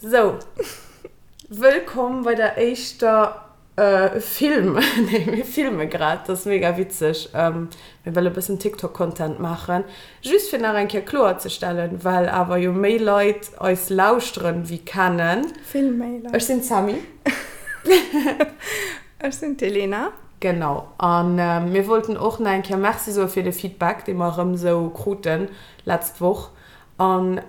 Sou, wëllkomm bei der éischter Film, nee mir filme grad, dat ass mega witzeg, mir wëlle bëssen TikTok Content maachen, just fir nach eng Kéier kloer ze stellen, well awer jo méi Leit eis lauschteren wéi kennen. Vill méi Leit. Ech sinn d'Sammy. Ech sinn d'Elena. Genau, a mir wollten och nach eng Kéier Merci soe fir de Feedback, dee mer erëm esou kruten letzt Woch. An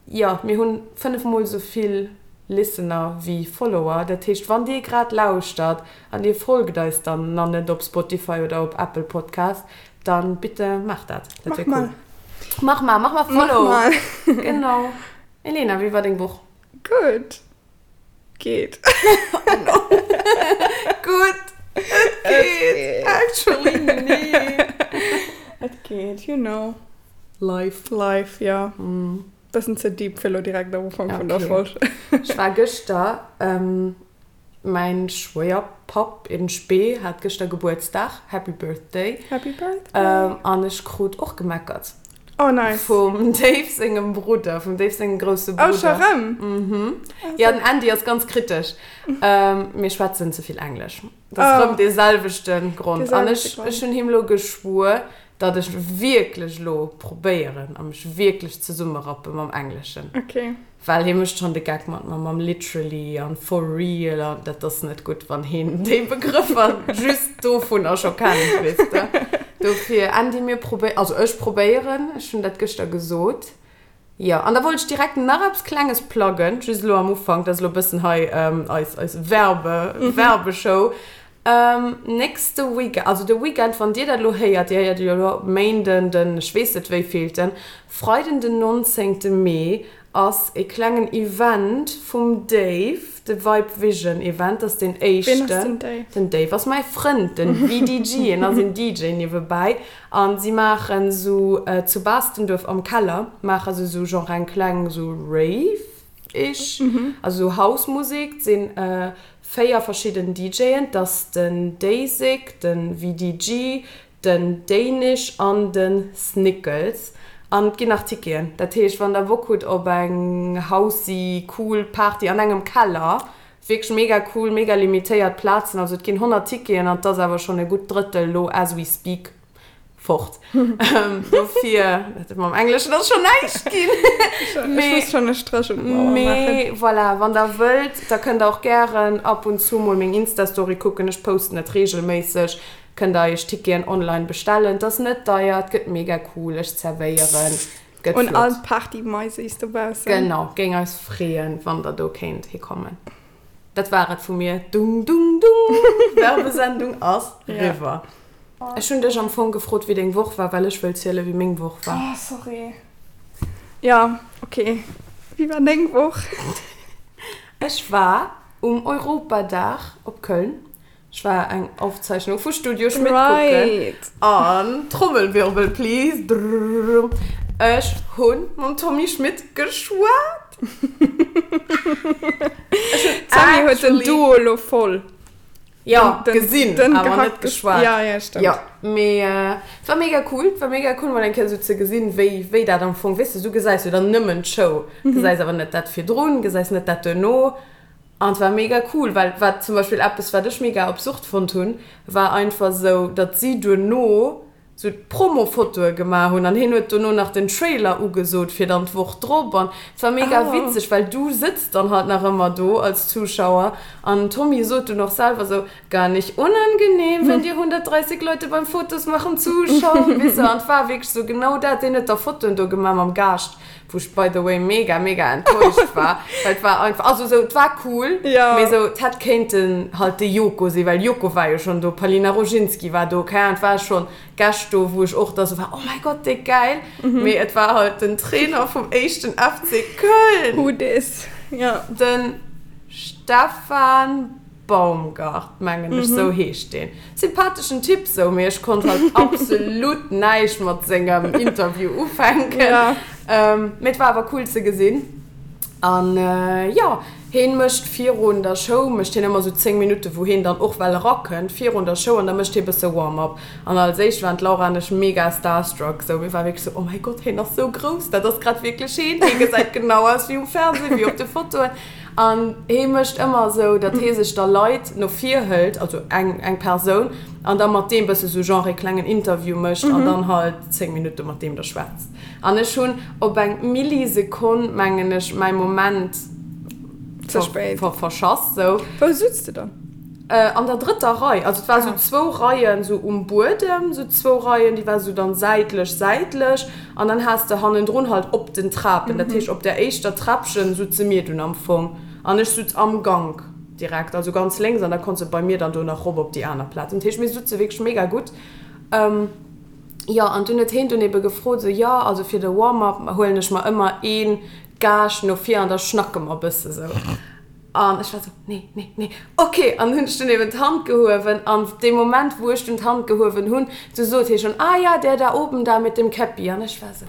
jo, mir hunn 5 mol esou vill Listener wéi Follower. Dat heescht, wann dir grad lauschtert an dir folgt eis dann na net op Spotify oder op Apple Podcast, dann bitte maacht dat. Dat wär cool. Mach mal. Mach mal, mach mal Follow. Mach mal. Genau. Elena, wéi war deng Woch? Gutt. Geet. Gutt. Et geet. Actually, nee. Et geet, you know. Life. Life, jo. Bëssen ze deep fir lo direkt am Ufank vun der Folg. Ech war gëschter, mäin Schwéierpapp in spe hat gëschter Gebuertsdag, Happy Birthday. Happy Birthday. An ech krut och gemeckert. Oh nice. Vum Dave sengem Brudder, vum Dave sengem grousse Brudder. Oh, scho rëm? Mhm. Jo, den Andy ass ganz kritesch. Mir schwätzen ze vill Englesch. Dat ass rëm dee selwechte Grond. An ech, ech hunn him lo geschwuer, datt ech wierklech lo probéieren a mech wierklech zesummerappe mam Engleschen. Okay. Well hie mécht schonn de Geck mat mer mam literally an for real an dat ass net gutt, wann hien déi Begrëffer just dovunner scho kennt, weess de. Dofir, Andy, mir probéi-, also ech probéieren, ech hunn dat gëschter gesot, jo. An da wollt ech direkt nach eppes Klenges pluggen, just elo am Ufank, dat ass elo e bëssen hei eis, eis Werbe, Werbeshow. Nächste Weekend, also de Weekend wann dir dat elo héiert, dir héiert et jo elo Méinden den ech weess net wéivillten, Freiden den 19 Mee ass e klengen Event vum Dave, de Vibe Vision Event, dat ass deen éischten. Ween ass den Dave? Den Dave ass mäi Frënd, den VDG, en ass een DJ niewebäi an si maachen sou zu Baastenduerf am Keller maache se sou genre eng kleng sou Rave ish, also sou House Musek, sinn 4 verschidden DJen, 't ass den Daysick, den VDG, den Danish an den Snickles. An et ginn nach Ticketen. Dat heescht, wann der Bock hutt op eng housey cool Party an engem Keller, wierklech mega cool, mega limitéiert Plazen, also et ginn 100 Ticketen an 't ass awer schonn e gutt Drëttel lo as we speak Fort. Dofir, dat mam Engleschen ass schon näischt ginn. Ech muss schon e Stréch un d'Mauer maachen. Mee voilà, wann der wëllt, da kënnt der och gären ab und zu mol meng Insta-Story kucken. Ech posten et reegelméisseg. Kënnt der iech Ticketen online bestellen. Et ass net deier, et gëtt mega cool, ech zerwéieren, gëtt flott. Un all d'Party-Maisis dobaussen. Genau, géing eis freeën, wann der do kéint hikommen. Dat war et vu mir. Dung, dung, dung, Werbesendung ass riwwer. Ech hunn dech am Fong gefrot, wéi deng Woch war, well ech wëll zielen, wéi meng Woch war. Oh, sorry. Jo, ok. Wéi war deng Woch? Ech war um Europadag op Köln. Ech war eng Aufzeichnung vu Studio Schmidt kucken. Right. An, Trommelwirbel please, drrrr, ech hunn mam Tommy Schmidt geschwat. D'Sammy huet den Duo lo voll. Jo, gesinn, awer net geschwat. Ja, ja, stëmmt. Jo, mee et war mega cool. Et war mega cool, mol eng Kéier esou ze gesinn, wéi, wéi dat am Fong, weess de, du gesäis jo dann nëmmen d'Show, gesäis awer net dat virdrun, gesäis net dat duerno. An et war mega cool, well wat zum Beispill eppes, wat ech mega absurd fonnt hunn, war einfach esou, datt si duerno sou d'Promofotoe gemaach hunn an hien huet dono nach den Trailer ugesot fir dann d'Woch drop an et war mega witzeg, well du sëtz dann halt nach ëmmer do als Zuschauer an den Tommy sot dunn och selwer sou, Gar nicht unangenehm, wenn dir 130 Leute beim Fotos machen zuschauen, weess de, an et war wierklech sou genau dat, deen huet da Fotoen do gemaach mam Gaascht, wou ech by the way mega mega enttäuscht war, well et war einfach, also sou et war cool, mee sou et hätt kéinten halt de Joko sinn, well Joko war jo schonn do, Palina Rojinski war do, keng Ahnung, et war schonn Gäscht do, wou ech och da sou war, oh mäi Gott, déck gäil, mee et war halt den Trainer vum éischten FC Köln, Who dis, jo. den Stefan Baumgart, mengen ech, sou heescht deen. Sympatheschen Typ sou, mee ech konnt halt absolut näischt mat sengem Interview ufänken. Mee et war awer cool ze gesinn. An jo, heen mécht virun der Show mécht heen ëmmer sou 10 Minutten, wou heen dann och well erakënnt virun der Show an da mécht hee bësse Warm-up. An als éischt waren d'Laura an ech mega starstruck, sou mir ware wierklech sou, oh mäi Gott, heen ass sou grouss, dat ass grad wierklech heen, hee gesäit genau aus wéi um Fernseh, wéi op de Fotoen. An hee mécht ëmmer esou, datt hee sech da Leit no vir hëlt, also eng, eng Persoun, an da mat deem bësse sou genre ee klengen Interview mécht an dann halt 10 Minutte mat deem da schwätzt. An ech hunn op eng Millisekonn, mengen ech, mäi Moment Ze spéit. verschass, sou. Wou sutz de dann? An der drëtter Rei. Also et war sou zwou Reien sou um Buedem, sou zwou Reien, déi war sou dann säitlech, säitlech. An dann has de hannendrun halt op den Trapen, dat heescht op der éischter Träppchen sutze mir dunn am Fong. An ech sutz am Gank direkt, also ganz lénks, an da konns de bei mir dann do nach rop op déi aner Plaz. Dat heescht mir sutze wierklech mega gutt. Jo, an dunn huet heen dunn ebe gefrot, sou, jo, also fir de Warm-up huelen ech mer ëmmer ee Gaascht no vir an da schnacke mer e bësse sou. An ech war sou, nee, nee, nee, ok. An hunn ech dunn eben d'Hand gehuewen an dee Moment, wou ech dunn d'Hand gehuewen hunn, du sot hie schonn, ah ja, der da oben da mit dem Käppi. An ech war sou,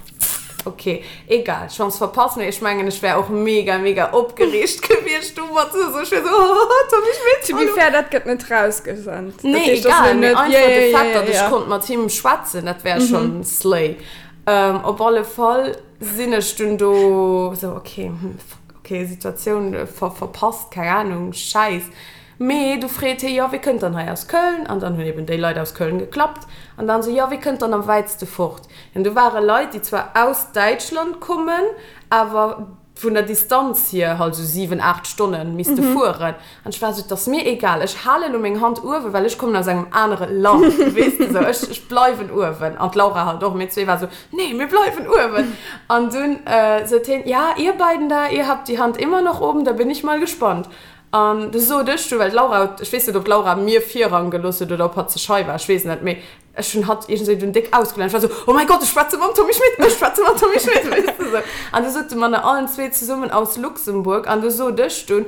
ok, egal, Chance verpasst. Mee ech mengen, ech wär och mega, mega opgereegt gewiescht domat, sou, ech wär sou, oh, Tommy Schmitt, To be hallo. fair, dat gëtt net rausgesent. Dat Nee, heescht, dat ass egal, elo mee net, einfach ja, de ja, Fait, ja, datt ech ja. konnt mat him schwätzen, dat wär schonn slay. Op alle Fall sinn ech dunn do sou, ok, hm, fuck. Ok, Situatioun verpasst, keng Ahnung, Schäiss. Mee du freet hie, jo, wie kënnt dann hei aus Köln? An dann hunn eben déi Leit aus Köln geklappt. An dann esou, jo, wie kënnt dann am wäitste fort? An do ware Leit, déi zwar aus Däitschland kommen, awer vun der Distanz hier halt esou 7, 8 Stonne misste fueren. An ech war esou, 't ass mir egal, ech hale lo meng Hand uewen, well ech kommen aus engem anere Land, weess de, esou, ech, ech bleiwen uewen. An d'Laura halt och, mir zwee war esou, nee, mir bleiwen uewen. An dunn sot hien, ja, ihr beiden da, ihr habt die Hand immer noch oben, da bin ich mal gespannt. An du sot ech du, well d'Laura, ech weess net, ob d'Laura mir Virrang gelooss huet oder ob hatt ze schei war, ech weess et net, mee Ech hunn hatt iergendwéi dunn déck ausgelacht. Ech war esou, Oh mäi Gott, ech schwätze mam Tommy Schmitt, ech schwätze mam Tommy Schmitt, weess de sou. An du sot de Mann, allen zwee zesummen aus Luxemburg. An du sot ech dunn,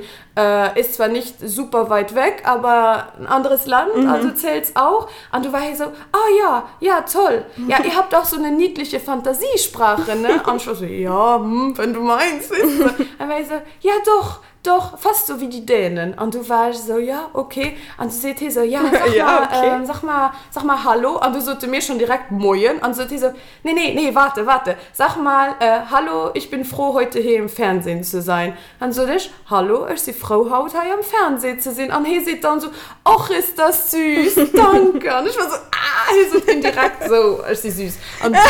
Ist zwar nicht super weit weg, aber ein anderes Land, also zählt's auch. An du war hie sou, Ah ja, ja, toll. Ja, ihr habt auch so eine niedliche Fantasiesprache, ne? An ech war sou, Ja, hm, wenn du meinst, weess de sou. An war hie sou, Ja, doch. Doch, fast so wie die Dänen. An du war ech esou, ja, okay. An du seet hie sou, ja, sag Ja, mal, okay. ähm, sag mal, sag mal Hallo. An du sote mir schon direkt Moien. An du sot hie sou, nee, nee, nee, warte, warte, sag mal, äh, Hallo, ich bin froh, heute hier im Fernsehen zu sein. An sot ech, Hallo, ech si frou, haut hei am Fernseh ze sinn. An hie seet dann sou, Och, ist das süß, danke. An ech war sou, ah, hie sot indirekt sou, ech si süß. An dunn.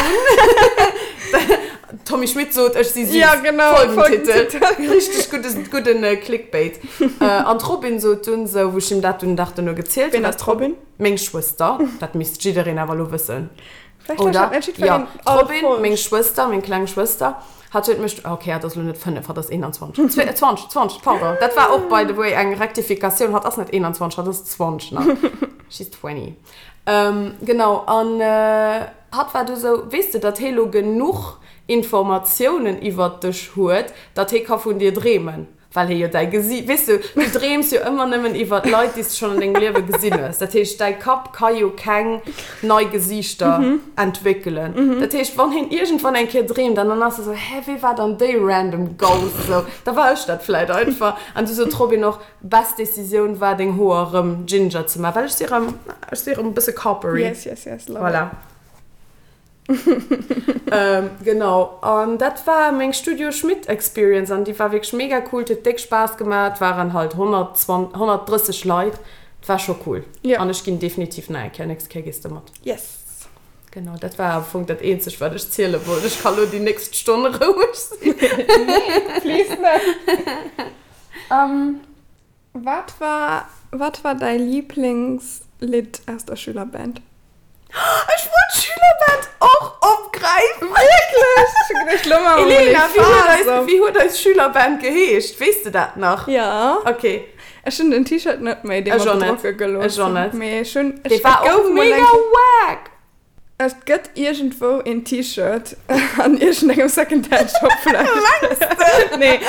Tommy Schmitt sot, ech si süß. Ja, genau, Folgentitel. Richteg guddes, gudden Clickbait. An d'Robin sot dunn sou, wou ech him dat dunn den Dag duerno gezielt hunn. Ween ass d'Robin? Meng Schwëster. Dat misst jiddereen awer elo wëssen. Vläicht lauschtert net jiddwereen all Folg. Jo, d'Robin, meng Schwëster, meng kleng Schwëster, hatt huet mech, ok, hatt ass elo net 5, hatt ass 21, 20, 20, pardon, dat war och by the way eng Rektifikatioun, hatt ass net 21, hatt ass 20 nach. She's 20. Genau, an hatt war du sou, Weess de, datt hee lo genuch Informatiounen iwwert dech huet, datt hee ka vun dir dreemen, well hee jo däi Gesi-, weess de, du dreems jo ëmmer nëmmen iwwert Leit, déi s de schonn an dengem Liewe gesinn hues. Dat heescht, däi Kapp ka jo keng nei Gesiichter entwéckelen. Dat heescht, wann heen iergendwann eng Kéier dreemt an dann ass e sou, Hä, wee war dann déi random Gous? Sou, da war ech dat vläit einfach. An du sot d'Robin och, Best Decisioun war deng Hoer rëm ginger ze man, well ech si rëm, ech si rëm e bësse coppery. Yes, yes, yes, love Voilà. it. Genau, an dat war meng Studio Schmitt Experience an déi war wierklech mega cool, et huet déck Spaass gemaach, et waren halt 120, 130 Leit, et war scho cool. Ja. An ech ginn definitiv nach eng Kéier, nächst Kéier gees de mat. Yes. Genau, dat war am Fong dat eenzegt wat ech ziele wollt. Ech ka lo déi nächst Stonn roueg sinn. Nee, please net. Wat war wat war däi Liiblingslidd aus der Schülerband? Ech wollt d'Schülerband och opgräifen! Wierklech? Ech hu geduecht, lo maache mer mol ee Elena, wéi huet eis, Faass op. wéi huet eis Schülerband geheescht? Weess de dat nach? Jo. Okay. Ech hunn den T-Shirt net méi, dee Ech mer och net. bedrocke gelooss Ech och hunn. net. Mee ech hunn, Dee ech, war et gouf och mol eng mega Kéier. wack! Et gëtt iergendwou een T-Shirt an iergendengem Secondhand-Shop vläicht. Mengs de? Nee.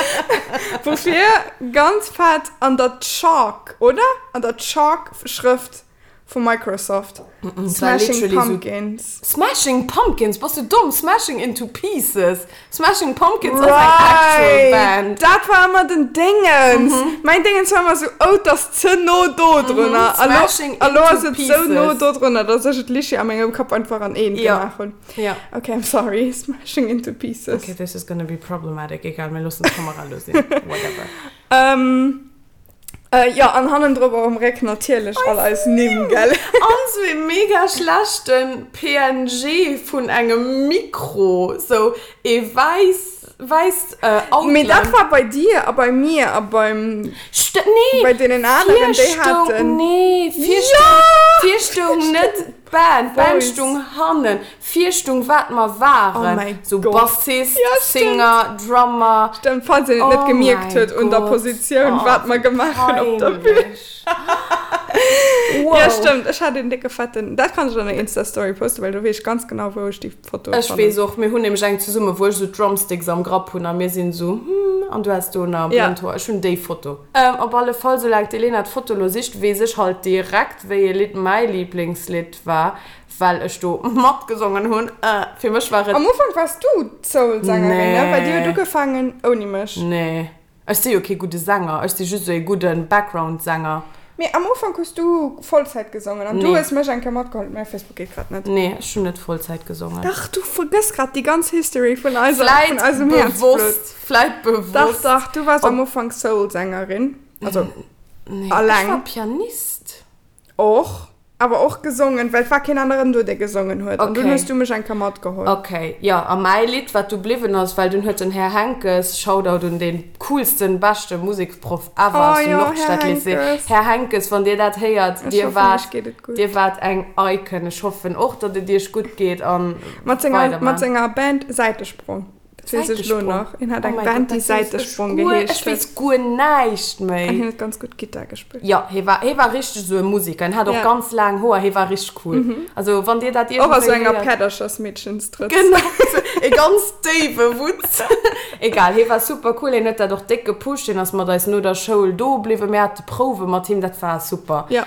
Woufir ganz fett an der Chalk, oder? An der Chalk-Schrëft. Vu Microsoft. Es war Smashing literally so- Pumpkins. Smashing Pumpkins? Bass du domm? Smashing into Pieces. Smashing Pumpkins ass eng actual Right! Band. Dat war ëmmer den Déngens. Mäin Déngens war ëmmer sou, oh, 't ass ze no do drunner. A lo, Smashing a lo ass into et sou no Pieces. do drunner, dass ech et lichi a mengem Kapp einfach an eent Ja. gemaach hunn. Ja. Okay, I'm sorry. Smashing into Pieces. Okay, this is gonna be problematic. Egal, mir loossen d'Kamera lo sinn. Whatever. Ähm. Jo, an hannendrop och um Réck natierlech all eis Nimm, gell? An sou ee mega schlechten PNG vun engem Mikro, sou ee wäiss, wäisst Outline. Mee dat war bei dir a bei mir a beim, St nee, bei deenen aneren, déi haten. Nee, vir stoung, vir stoung net d'Band, d'Band stoung hannen. Vir stung wat mer waren, Oh mäi sou Gott. Bassist, Ja, stimmt. Singer, Drummer. Stimmt, falls een et net Oh gemierkt mäi huet un der Gott. Positioun, Oh, wat mer wéi gemaach hunn op der Bühn. peinlech. Wow. Ja, stimmt, ech hat een décke fetten, dat kann ech an der Insta-Story posten, well do weess ech ganz genau, wou ech déi Foto Ech fannen. weess och, mir hunn nämlech eng zesumme, wou ech sou d'Drumsticks am Grapp hunn a mir sinn sou hm, an du has do nach Ja. blond Hoer. Ech hunn déi Foto. Op alle Fall, soulaang d'Elena d'Foto lo sicht, weess ech halt direkt, wéi ee Lidd mäi Liblingslidd war. Well ech do matgesongen hunn. Fir mech war et. Am Ufank wars du d'Soul-Sängerin, ne? Well dir huet Nee. ugefaangen ouni mech. Nee. Ech si jo kee gudde Sänger. Ech si just esou ee gudde Background-Sänger. Mee am Ufank hues du Vollzäit gesongen an du Nee. hues mech eng Kéier matgeholl. Mäi Facebook geet grad net. Nee, ech hunn net Vollzäit gesongen. Dach, du vergëss grad déi ganz History vun eiser, vun Vläit eisem Häerzblutt. bewosst, vläit Dach, bewosst. dach, du wars Ob. am Ufank Soul-Sängerin. Also, Nee, ech alleng. war Pianist. Och. Awer och gesongen, well et war keen aneren do, dee gesongen huet. An dunn Okay. hues du mech eng Kéier matgeholl. Okay, jo, a mäi Lidd, wat du bliwwen ass, well dunn huet den Här Henckes, Shoutout un dee coolsten, beschte Museksproff ever Oh aus dem jo, Här Nordstadlycée, Henckes. Här Henckes, wann Dir dat héiert, Ech Dir hoffen, waart, iech geet et gutt. Dir waart eng Icon. Ech hoffen och, datt et Iech gutt geet a Mat senger, mat weidermaacht. senger Band Säitesprong. Dat weess ech lo nach. Hien hat eng Band, déi Säitesprong geheescht Ech weess guer näischt méi. An hien huet ganz gutt Gittar gespillt. Jo, hie war, hie war richteg esou e Musiker. Hien hat och ganz laang Hoer. Hie war richteg cool. Also wann dir dat Och a sou iergendwéi enger héiert. Päerderchersmeedchenstrëtz. Genau, sou e ganz déiwe Wutz. Egal, hie war super cool. Hien huet dat och déck gepusht. Hien ass mat eis no der Schoul do bliwwen. Mir hate Prouwe mat him. Dat war super. Jo.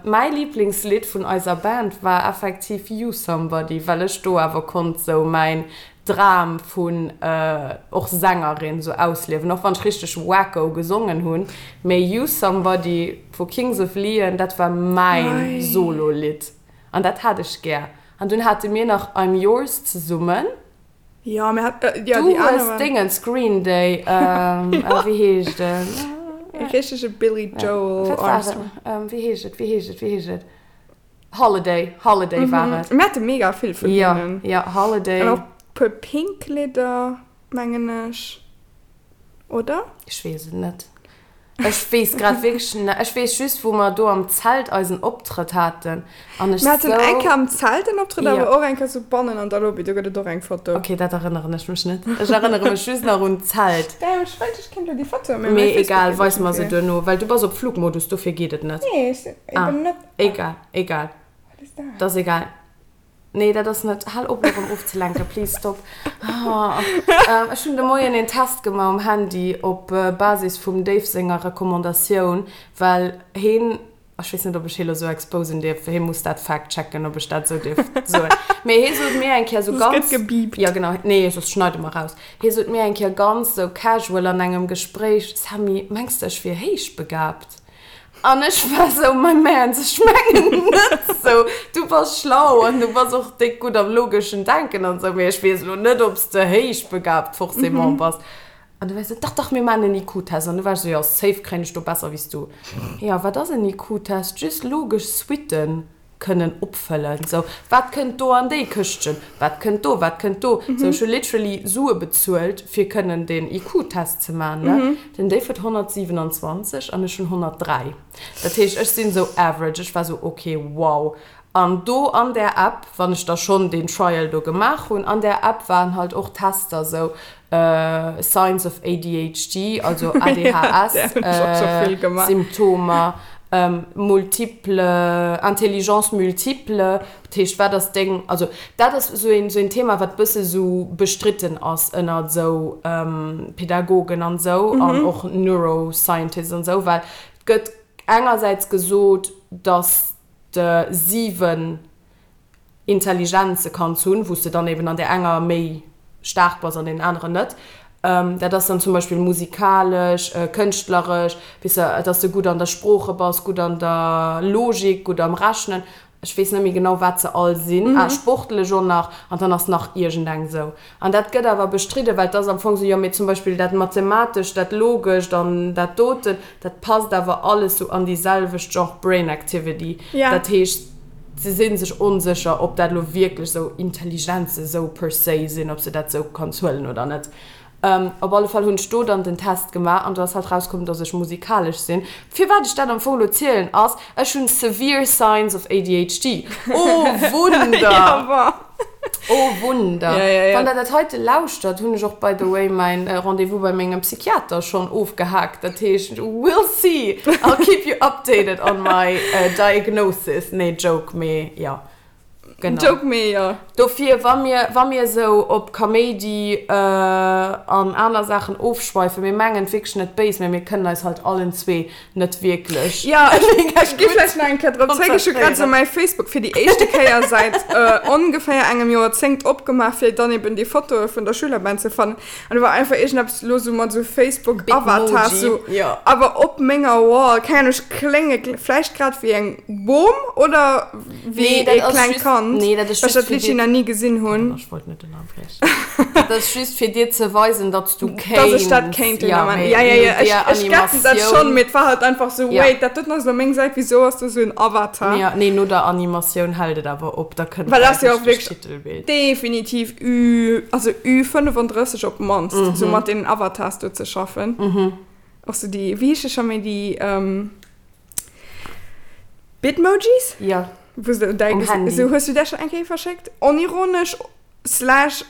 Mäi Liblingslidd vun eiser Band war effektiv You Somebody, well ech do awer konnt sou mäin Dram vun och Sängerin sou ausliewen, och wann ech richteg wacko gesongen hunn, mee Use Somebody vu Kings of Leon, dat war mäin Solo-Lidd an dat hat ech gär. An dunn hate mir nach I'm Yours zesummen. Jo, mir hat, jo, Du déi aner hues waren. Dingens, Green Day, wéi heescht en? E richtege Billy Joel Wat war Armstrong. et? Wéi heescht et, wéi heescht et, wéi heescht et? Holiday, Holiday war et. Mir hate mega vill vun hinnen. Jo, jo, Holiday. An och puer pink Lidder, mengen ech, oder? Ech weess et net. Ech weess grad wierklech net. Ech weess just, wou mer do am Zelt eisen Optrëtt haten an ech Mir haten sou. eng Kéier am Zelt en Optrëtt, Jo. awer och eng Kéier sou bannen an der Lobby, do gëtt et och eng Foto. Ok, dat erënneren ech mech net. Ech erënnere mech just nach un d'Zelt. Damn, ech wëllt, ech kéint elo déi Foto, mee mäi Mee Facebook egal, geet weis net mer se méi. duerno, well du bass op Flugmodus, dofir geet et net. Nee, ech sinn Ah. eben net. Egal, egal. Wat ass dat? Dat ass egal. Nee, dat ass net. Hal op, mech erëm ofzelenken, please stop. Ah, ech hunn de Moien een Test gemaach um Handy op Basis vum Dave senger Recommandatioun, well heen, ech weess net, ob ech hee lo sou exposen dierf, hee muss dat fact-checken, ob ech dat sou dierf soen, mee hee sot mir eng Kéier sou Soss ganz. gëtt gebiipt. Jo, genau. Nee, soss schneide mer raus. Hee sot mir eng Kéier ganz sou casual an engem Gespréich, Sammy, mengs de, ech wier héichbegabt? An ech war sou, my man, ech mengen net sou, du bass schlau an du bass och déck gutt am logeschen Denken an sou, mee ech weess elo net, ob s de héichbegabt forcément bass. An du war sou, dach, dach, mir maachen en IQ-Test. An du war ech sou, jo, safe kréien ech do besser wéi s du. Jo, wat ass en IQ-Test? Just logesch Suitten. kënnen opfëllen, sou, wat kënnt do an déi Këschtchen, wat kënnt do, wat kënnt do, sou, ech hu literally Sue bezuelt, fir kënnen deen IQ-Test ze man, ne. Den Dave huet 127 an ech hunn 103, dat heescht, ech sinn sou average, ech war sou, ok, wow. An do an där App, wann ech da schonn deen Trial do gemaach hunn, an där App waren halt och Tester, sou, Signs of ADHD, also ADHS, Symptomer, multiple, Intelligence multiple, dat heescht, wat ass deng, also dat ass esou een, esou een Thema, wat bësse esou bestritten ass ënnert esou Pädagogen an esou an och Neuroscientists an esou, well et gëtt engersäits gesot, datt. de 7 Intelligenze kanns hunn, wou s de dann eben an där enger méi staark bass an deenen aneren net. Dat ass dann zum Beispill musikalesch, kënschtleresch, weess de, dass de gutt an der Sprooche bass, gutt an der Logik, gutt am Rechnen. Ech weess net méi genau, wat se all sinn. Ah, sportlech och nach. An dann ass nach iergendeng esou. An dat gëtt awer bestridden, well et ass am Fong esou, jo, mee zum Beispill dat Mathematescht, dat Logescht an dat doten, dat passt awer alles sou an déi selwecht Genre Brain Activity. Dat heescht, se si sech onsécher, ob dat elo wierklech sou Intelligenze sou per se sinn, ob s de dat sou kanns huelen oder net. Op alle Fall hunn ech do dann den Test gemaach an do ass halt rauskomm, dass ech musikalesch sinn. Firwat ech dat am Fong elo zielen ass, ech hunn severe signs of ADHD. Oh Wunder! Oh Wunder! Wann der dat heite lauschtert, hunn ech och by the way mäin Rendez-vous bei mengem Psychiater schonn ofgehaakt. Dat heescht, we'll see! I'll keep you updated on my diagnosis. Nee, Joke, mee jo. Genau. Joke mee jo. Dofir, wa mir, wa mir esou op Kaméidi an aner Saachen ofschweifen, mir mengen et wierklech net béis, mä mir kënnen eis halt allen zwee net wierklech. Jo, ech, ech gi vläicht nach eng Kéier drop zréck. Ech hu grad esou mäi Facebook fir déi éischte Kéier säit ongeféier engem Joerzéngt opgemaach, fir dann eben déi Fotoe vun der Schülerband ze fannen. An do war einfach iergendeppes elo sou mat sou Facebook-Avatars, sou awer op menger Wall, keng Ahnung, ech klénge vläicht grad wéi eng Bom oder wéi ee klengt Kand, Nee, dat ass well ech just dat fir Lidd nach ni gesinn hunn. Ech wollt net ënnerbriechen. Dat ass just fir dir ze weisen, datt s du kéints. Dass ech dat kéint den Ament. Ja, ja, ja, ech, ech getten dat schonn, mee et war halt einfach sou, wait, dat doten ass elo meng Säit, wisou ass do sou en Avatar? Ja, nee, no der Animatioun hält et awer op, da kënnt Well dat ass jo och wierklech Titelbild. Definitiv Ü, also Ü35 op d'mannst, sou mat deenen Avatars do ze schaffen. Och sou déi, wéi heesche scho méi déi, Bitmojis? Ja. Wou se däi Um Handy. Sou, hues du där schonn eng Kéier verschéckt? Onironesch slash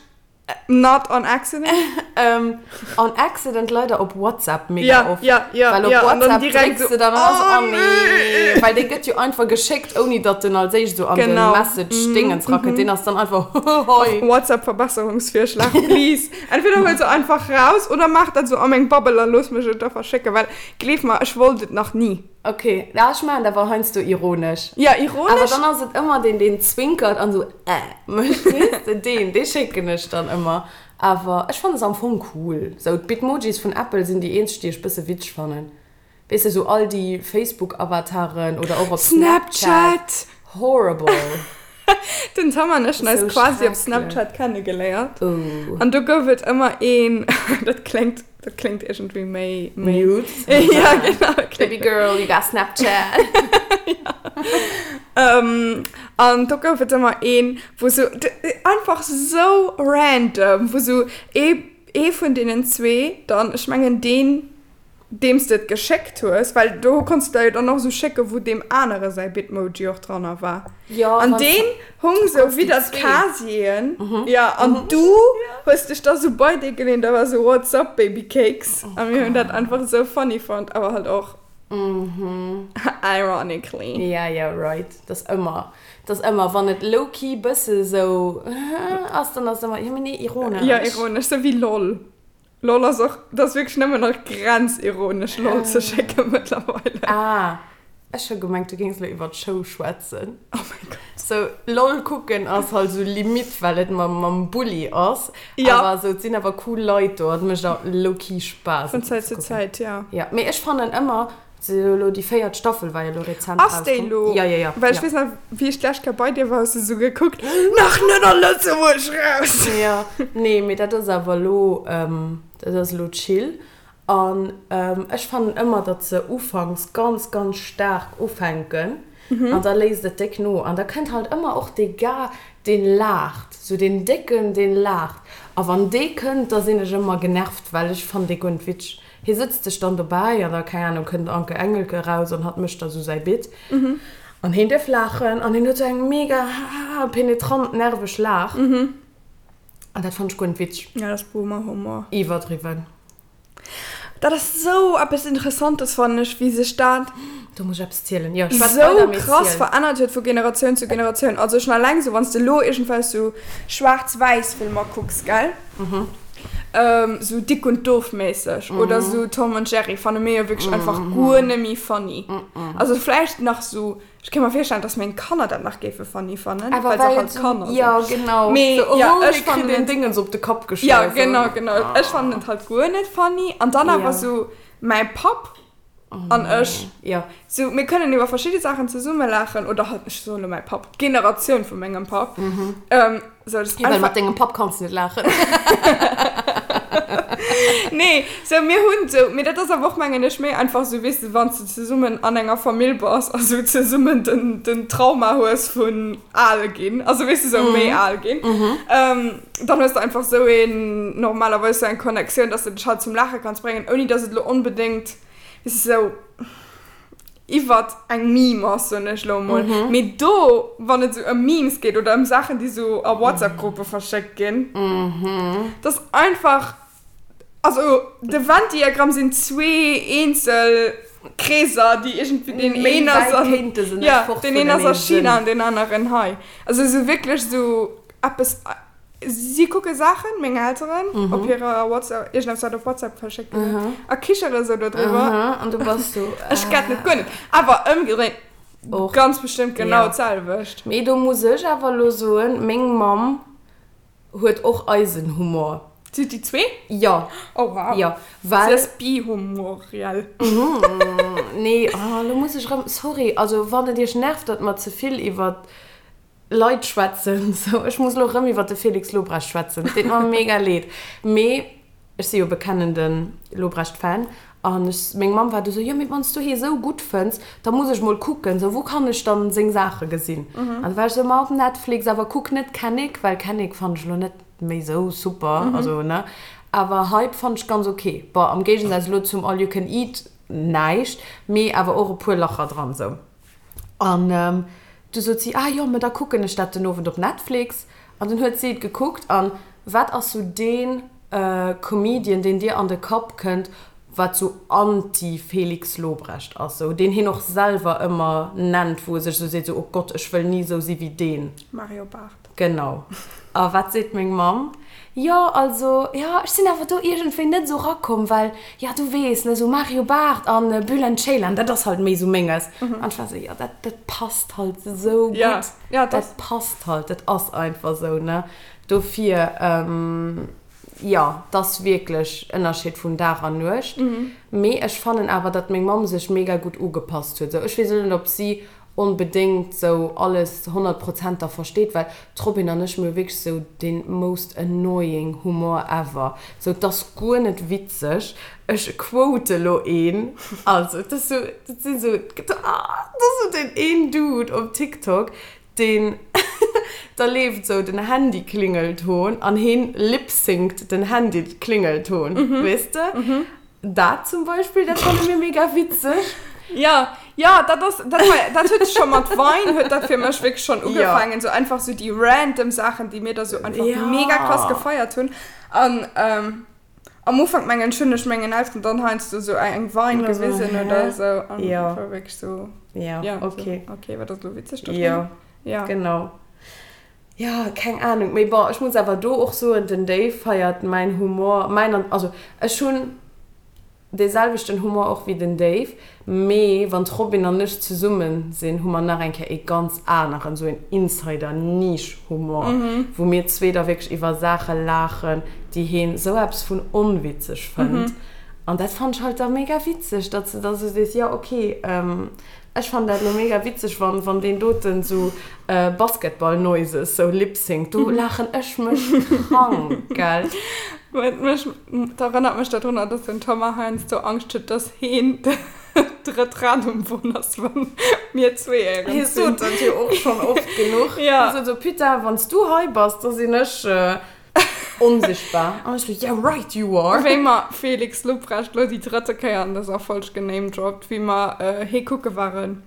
not on accident? Ähm, on accident leider op WhatsApp mega Ja, oft. ja, ja, Well op ja, an dann WhatsApp direkt drécks so, de dann an ass oh oh nee. nee. Well dee gëtt jo einfach geschéckt, ouni datt en als éischt sou an den Genau. Message-Dingens rakënnt. Deen ass dann einfach hoi. WhatsApp-Verbesserungsvirschlag, please. Entweder huel se einfach raus oder maach dat sou a meng Bubble a looss mech et da verschécken, well Gleef mer, ech wollt et nach ni. Ok, ja ech maachen dat awer heiansdo ironesch. Ja, ironesch. Awer dann ass et ëmmer deen, deen zwinkert an esou äh mécht, weess de, deen, dee schécken ech dann ëmmer. Awer ech fannen se am Fong cool. Sou d'Bitmojis vun Apple sinn déi eenzeg, déi ech bësse witzeg fannen. Weess de, sou all déi Facebook-Avataren oder och op Snapchat. Snapchat. Horrible. Den Tom an ech hunn eis quasi op Snapchat kennegeléiert. An do gouf et ëmmer een, dat kléngt, dat kléngt iergendwéi méi, méi. Nudes. Ja, genau. Baby girl, you got Snapchat. An do gouf et ëmmer een, wou sou, einfach sou random, wou sou ee, ee vun deenen zwee dann, ech mengen deen, deem s de et geschéckt hues, well do konns de der jo dann och esou schécken, wou deem anere säi Bitmoji och dranner war. Jo, An deen hung sou widder d'Casieren, jo, an du hues dech da sou bei dee geleent a war sou What's up, babycakes? A mir hunn dat einfach esou funny fonnt, awer halt och ironically. Ja, ja, right. Dat ass ëmmer, dat ass ëmmer, wann et low-key bësse sou ass, dann ass et ëmmer, jo, mee nee, ironesch. Jo, ironesch, sou wéi lol. Lol ass och, dat ass wierklech nëmmen nach grenzironesch lol ze schécke mëttlerweile. Ah, ech hu gemengt du géings elo iwwer d'Show schwätzen. Oh mäi Gott. Sou lol kucken ass halt sou limite well et mam mam Bulli ass. Ja. Awer sou et sinn awer cool Leit do an et mécht och low-key Spaass Vun Zäit zu Zäit, ja. Ja, mee ech fannen ëmmer, Se jo elo déi véiert Staffel war jo elo rezent Ass déi rauskomm. elo? Ja, ja, ja. Well ech ja. weess nach, wéi ech d'lescht Kéier bei dir war, hues du esou gekuckt, Nach net a Lëtzebuerg raus! Ja, nee, mee dat ass awer elo, dat ass elo chill. An ech fannen ëmmer, datt se ufanks ganz, ganz staark ufänken an da léisst et déck no. An da kënnt halt ëmmer och dee Gars, deen laacht, sou deen Décken, deen laacht. A wann dee kënnt, da sinn ech ëmmer genervt, well ech fannen dee guer net witzeg. Hie sëtzt sech dann dobäi an da, keng Ahnung, kënnt Anke Engelke eraus an hatt mécht da sou säi Bit. An hien dierf laachen an hien huet sou eng mega penetrant nerveg Laach. An dat fannt ech guer net witzeg. Ja, dat ass Boomer-Humor. Iwwerdriwwen. Dat ass sou eppes Interessantes, fannen ech, wéi sech dat. Do muss ech eppes zielen. Jo, schwätz sou weider, mee krass ziel. verännert huet vu Generatioun zu Generatioun. Also schon alleng sou, wann s de elo iergendwelch sou schwaarz-wäiss Filmer kucks, gell? Sou Dick und Doof méisseg oder sou Tom und Jerry fanne mir jo wierklech einfach guer net méi funny. Also vläicht nach sou, ech kéint mer virstellen, dass meng Kanner dat nach géife funny fannen, well se halt Kanner sinn. Jo, genau. Mee jo, ech fannen et. Dingens op de Kapp geschloen. Jo, genau, genau. Ech fannen et halt guer net funny. An dann awer sou mäi Papp an ech. Jo. Sou, mir kënnen iwwer verschidde Saachen zesumme laachen, oder halt, ech soen elo mäi Papp, d'Generatioun vu mengem Papp. Sou, dat ass einfach. Well mat dengem Papp kanns de net laachen. Nee, sou, mir hunn sou, mee dat ass awer och, mengen ech, méi einfach sou, weess de, wann s de zesummen an enger Famill bass a sou zesummen den, den Trauma hues vun al ginn, also weess de, sou méi al ginn, dann hues de einfach sou een, normalerweis sou eng Connectioun, dass de dech halt zum Laache kanns bréngen, ouni dass et elo onbedéngt, weess de, sou iwwert eng Meme ass, soen ech elo emol. Mee do, wann et sou ëm Memes geet oder ëm Saachen, déi sou a WhatsApp-Gruppe verschéckt ginn, dat ass einfach, also de Venn-Diagramm sinn zwee eenzel Kreeser, déi iergendwéi, deen een ass an, jo, deen een ass a China an deen aneren hei. Also sou wierklech sou eppes. Si kucke Saachen, meng Elteren, op hirer WhatsApp, iergendeppes wat op WhatsApp verschéckt ginn ass, a kichere sou dodriwwer. An du bass sou. Ech get net guer net. Awer ëmgedréint och ganz bestëmmt genau d'selwecht. Mee do muss ech awer elo soen, meng Mamm huet och eisen Humor. Si huet déi zwee? Jo. Oh wow. Jo, well. Si ass bihumoriell. Nee, oh, elo muss ech erëm, sorry, also wann et iech nervt, datt mer ze vill iwwer Leit schwätzen. Sou, ech muss elo rëm iwwer de Felix Lobrecht schwätzen. Et deet mer mega leed. Mee ech si jo bekennende Lobrecht-Fan. An ech, meng Mamm war du sou, jo mee wann s du hie sou gutt fënns, da muss ech mol kucken, sou wou kann ech dann seng Saache gesinn? An du war ech sou, ma op Netflix, awer kuck net Kennick, well Kennick fannt ech elo net méi sou super, also ne. Awer Hype fannt ech ganz ok. Bon, am Géigesaz elo zum All You Can Eat näischt, mee awer och e puer Lacher dran, sou. An du sot si, ah jo, mä da kucken ech dat den Owend op Netflix. An dunn huet si et gekuckt. An wat ass sou dee Comedian, deen dir an de Kapp kënnt, wat sou anti-Felix Lobrecht ass, sou deen hien och selwer ëmmer nennt, wou e sech sou seet, sou, oh Gott, ech wëll ni sou si wéi deen. Mario Barth. Genau. A wat seet meng Mamm? Jo, also, jo, ech sinn awer do iergendwéi net esou rakomm, well, jo, du weess, ne, esou Mario Barth an Bülent Ceylan, dat ass halt méi esou menges. An ech war esou, jo, dat, dat passt halt esou gutt. Ja, dat. Dat passt halt, dat ass einfach esou, ne. Dofir, jo, 't ass wierklech Ënnerscheed vun Dag an Nuecht. Mee ech fannen awer, datt meng Mamm sech mega gutt ugepasst huet. Esou, ech weess elo net, ob si onbedéngt sou alles 100 Prozent da versteet, well d'Robin an ech, mir hu wierklech sou dee most annoying Humor ever, sou 't ass guer net witzeg, ech quote lo een, also et ass sou, dat sinn sou, ah, dat ass sou deen een Dude op TikTok, deen da leeft sou den Handy-Klingelton an heen lip-synct den Handy-Klingelton, weess de? Dat zum Beispill, dat fanne mir mega witzeg. Ja, ja, dat ass, dat war, dat huet scho mat Vine huet dat fir mech wierklech schonn ugefaangen, sou einfach sou déi random Saachen, déi mir da sou einfach Ja. mega krass gefeiert hunn. An ähm, am Ufank mengen ech hunn ech mengen Elteren dann heiansdo sou eng Vine Oder so, gewisen hä? oder sou an Ja. war wierklech sou, Ja, ja, sou, okay. okay, wat ass elo witzeg dodrun? Ja, Ja. genau. Ja, keng Ahnung. Mee bon, ech muss awer do och soen, den Dave feiert mäin Humor, mäin an, also ech hunn dee selwechten Humor och wéi den Dave, mee wann d'Robin an ech zesummen sinn, hu mer nach eng Kéier ee ganz aneren, sou een Insider-Niche-Humor, wou mir zwee da wierklech iwwer Saache laachen, déi heen sou eppes vun onwitzeg fënnt. An dat fannt ech halt da mega witzeg, datt s de da sou sees, jo okay, Ech fannen dat elo mega witzeg wann wann deen doten sou Basketball Noises sou lipsynct, do laachen ech mech krank, gell. Huet mech, dat erënnert mech dodrunner, dass den Thomas heiansdo Angscht huet, dass heen d'drëtt Rad um Won ass, wann mir zwee éierens Hie sinn. sot dat jo och schonn oft genuch. Ja. Hie sot sou, Putain, wann s du hei bass, da sinn ech Onsichtbar. An ech sou, yeah right you are. Wéi mer Felix Lobrecht lo déi drëtte Kéier an dëser Folg genamedroppt, wéi mer hee kucke waren,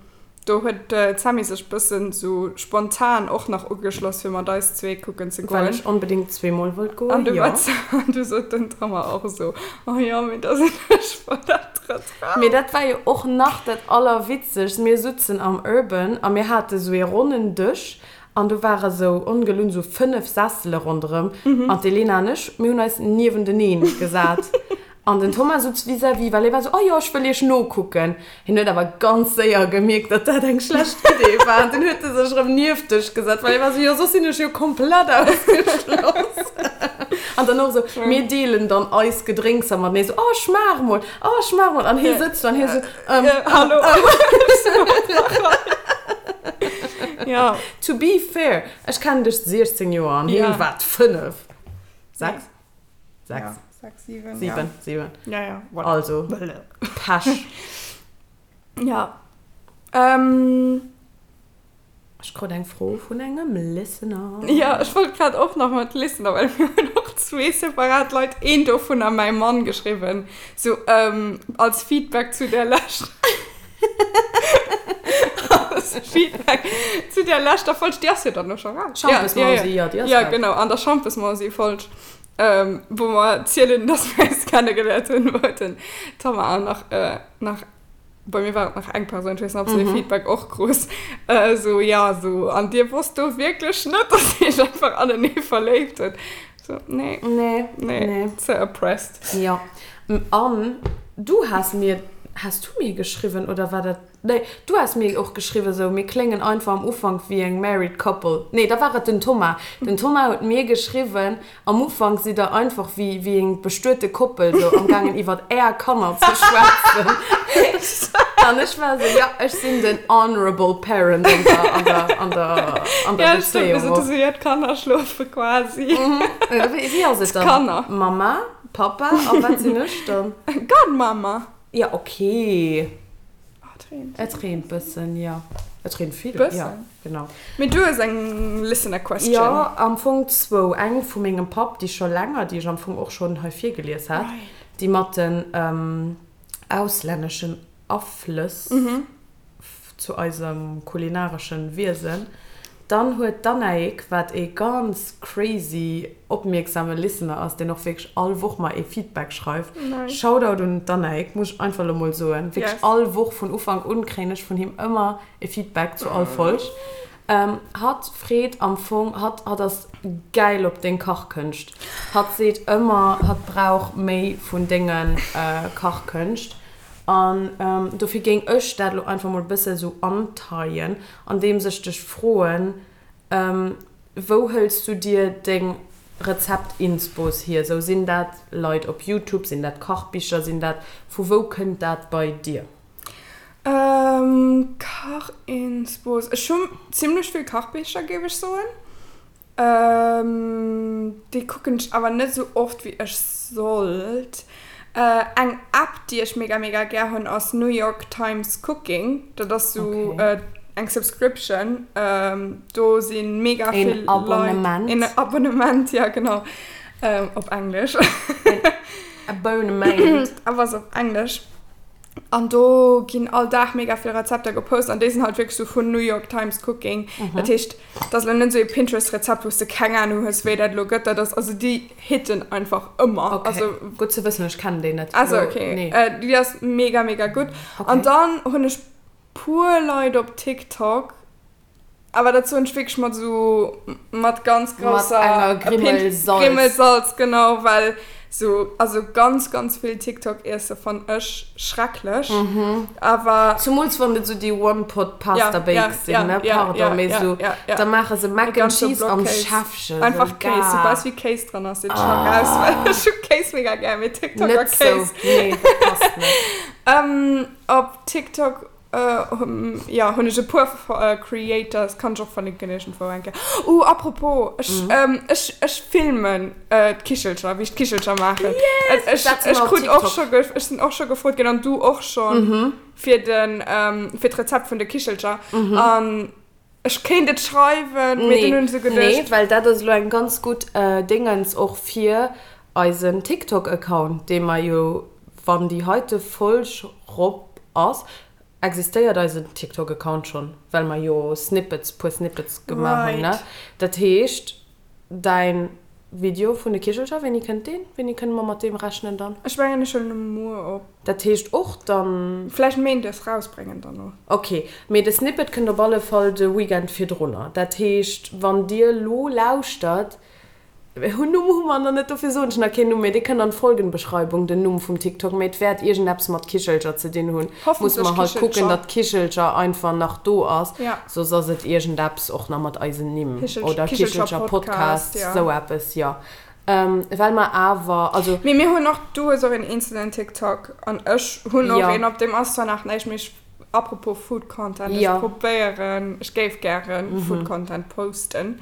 do huet d'Sammy sech bëssen sou spontan och nach ugeschloss fir mat eis zwee kucken ze Well goen. ech onbedéngt zweemol wollt An goen, du jo. war an du sot den Thomas och esou, oh jo, mee da sinn ech voll dat drëtt Rad. Mee dat war jo och nach dat allerwitzegst, mir sutzen am Urban a mir hate sou ee ronnen Dësch. An do ware sou ongelunn sou 5 Sessele ronderëm an d'Elena an ech, mir hunn eis niewenteneen gesat. An den Thomas sutz vis-à-vis, well hie war sou, oh jo, ech wëll iech nokucken. Hien huet awer ganz séier gemierkt, datt dat eng schlecht Idee war an dunn huet e sech erëm nieft dech gesat, well hie war sou, jo, soss sinn ech jo komplett ausgeschloss. An dann och sou, mir deelen dann eis Gedrénkser matenee, sou, oh, schmaach mol, oh, schmaach mol. An hie sëtzt do an hie sou, ähm, Hallo. Ja. To be fair, ech kennen dech 16 Joer an hien war 5. 6? 6. 6, 7. 7, 7. Ja, ja. Voilà. Also, Pech. Ja. Ähm. Ech krut eng Fro vun engem Listener. Ja, ech wollt grad och nach mat Listener, well mir hunn och zwee separat Leit, een dovunner mäi Mann, geschriwwen, sou als Feedback zu där leschter als Feedback zu där leschter Folg, déi ass jo dann elo scho raus. Schampesmausi, jo, déi ass raus. Ja, genau, an der Schampesmausi-Folg, wou mer zielen, dass mir eis kennegeléiert hunn, wou den Tammar nach nach Bei mir war et nach eng Persoun, ech weess net, ob se dee Feedback och krut, esou, ja, esou, an dir wosst do wierklech net, dass dir iech einfach anenee verléift hutt? So, nee. Nee. Nee. Nee. Ze oppressed. Jo. An du has mir, has du mir geschriwwen oder war dat, nee, du has mir och geschriwwen, esou, mir kléngen einfach am Ufank wéi eng married couple. Nee, da war et den Thomas. Den Thomas huet mir geschriwwen, Am Ufank sidd der einfach wéi wéi eng bestuete Koppel sou am gaangen iwwert är Kanner ze schwätzen. An ech war sou, ja ech sinn den honorable parent an der an der an der an der Ja, stimmt, mir Bezéiung sot och. sou, ja d'Kanner schlofe quasi. Wéi wéi ass et dann? D'Kanner. Mama, Papa a wat sinn ech dann? Godmama. Ja okay. Oh, et reent. Et reent bëssen, jo. Et reent vill, Bëssen. jo, genau. Mee du hues eng Listener Question. Jo, am Fong zwou. Eng vu mengem Papp, déi scho länger, déi ech am Fong och schonn hei virgelies hat, déi mat den auslänneschen Aflëss zu eisem kulinareschen Wiesen. Dann huet d'Annaïg, wat ee ganz crazy opmierksame Listener ass, deen och wierklech all Woch mer ee Feedback schreift, Shoutout un d'Annaïg, muss ech einfach elo mol soen, wierklech all Woch vun Ufank un kréien ech vun him ëmmer e Feedback zu all Folg. Hatt freet am Fong, hatt hatt ass gäil op deng Kachkënscht, hatt seet ëmmer, hatt brauch méi vun denge Kachkënscht. An dofir géing ech dat elo einfach mol e bësse sou anteien, andeems ech dech froen, Wou hëls du dir deng Rezept-Inspos hier? Sou, sinn dat Leit op Youtube, sinn dat Kachbicher, sinn dat, vu wou kënnt dat bei dir? Kach-Inspos, ech hu zimlech vill Kachbicher, géif ech soen. Déi kucken ech awer net esou oft wéi ech sollt. Eng App déi ech mega mega gär hunn ass New York Times Cooking. Dat ass sou eng Subscription. Do si mega vill Leit. Een Abonnement, ja genau. Op Englesch. Abonnement. Awer ass op Englesch. An do ginn all Dag mega vill Rezepter gepost an déi sinn halt wierklech sou vun New York Times Cooking. Dat heescht, dat ass elo net esou ee Pinterest-Rezept, wou s de keng Anung hues, wéi dat elo gëtt. Dat ass, also déi hitten einfach ëmmer. Okay, Also, gutt ze wëssen, ech kennen déi net. Ah sou, Lo, okay. nee. Déi ass mega, mega gutt. Okay. An dann hunn ech puer Leit op TikTok, Awer dat soen ech wierklech mat esou, mat ganz grousser. Mat enger Grimmel Salz. Grimmel Salz, genau, well esou, also ganz, ganz vill TikTok-Iesse fann ech schrecklech. Awer. Zumools wann et esou déi One-Pot-Pasta-Bakes sinn, ne? Pardon, mee esou, da maache se Mac and Cheese am Schäffchen. Einfach Kéis, soubal wéi Kéis dran ass, sinn ech scho raus, well ech hu Kéis mega gär, mee TikTok a Net sou, Kéis. nee, dat passt net. Op TikTok Jo, hunn ech e puer Creators, kann ech och verlinken iergendwou eng Kéier. Uh, apropos, ech, ech, ech filmen d'Kichelcher, wéi ech d'Kichelcher maachen. Yes! Ech, Dat si ech mer op krut och TikTok. scho ge, ech sinn och scho gefrot ginn, an du och schonn, fir den, fir d'Rezept vun de Kichelcher. An ech kéint et schreiwen, mee dunn hunn ech esou Nee, geduecht. well dat ass elo eng ganz gutt Déngens och fir eisen TikTok-Account, dee mer jo, wann déi heite Folg rop ass, existéiert eisen TikTok-Account schonn, well mer jo Snippets, puer Snippets gemaach hunn, ne? Right. Dat heescht, däin. Video vun de Kichelcher, wéini kënnt deen? Wéini kënne mer mat deem rechnen dann? Ech mengen ech huelen e muer op. Dat heescht och dann. Vläicht méindes rausbréngen dann och. Ok, mee de Snippet kënnt op alle Fall de Weekend virdrunner. Dat heescht wann dir lo lauschtert, Hun Numm hu mer nach net, dofir soen ech nach keen Numm, mee dee kënnt an d'Folgenbeschreibung, den Numm vum TikTok, mee et wäert iergendeppes mat Kichelcher ze dinn hunn. Musse mer halt kucken, datt Kichelcher einfach nach do ass, soss ass et iergendeppes och nach mat eisen Nimm oder Kichelcher Podcast, sou eppes, jo. Well mer awer, also. Mee mir hunn och, du hues och een eenzelen TikTok an ech hunn och een, op deem ass zwar nach näischt, mee ech, apropos Food Content, ech probéieren, ech géif gären Food Content posten.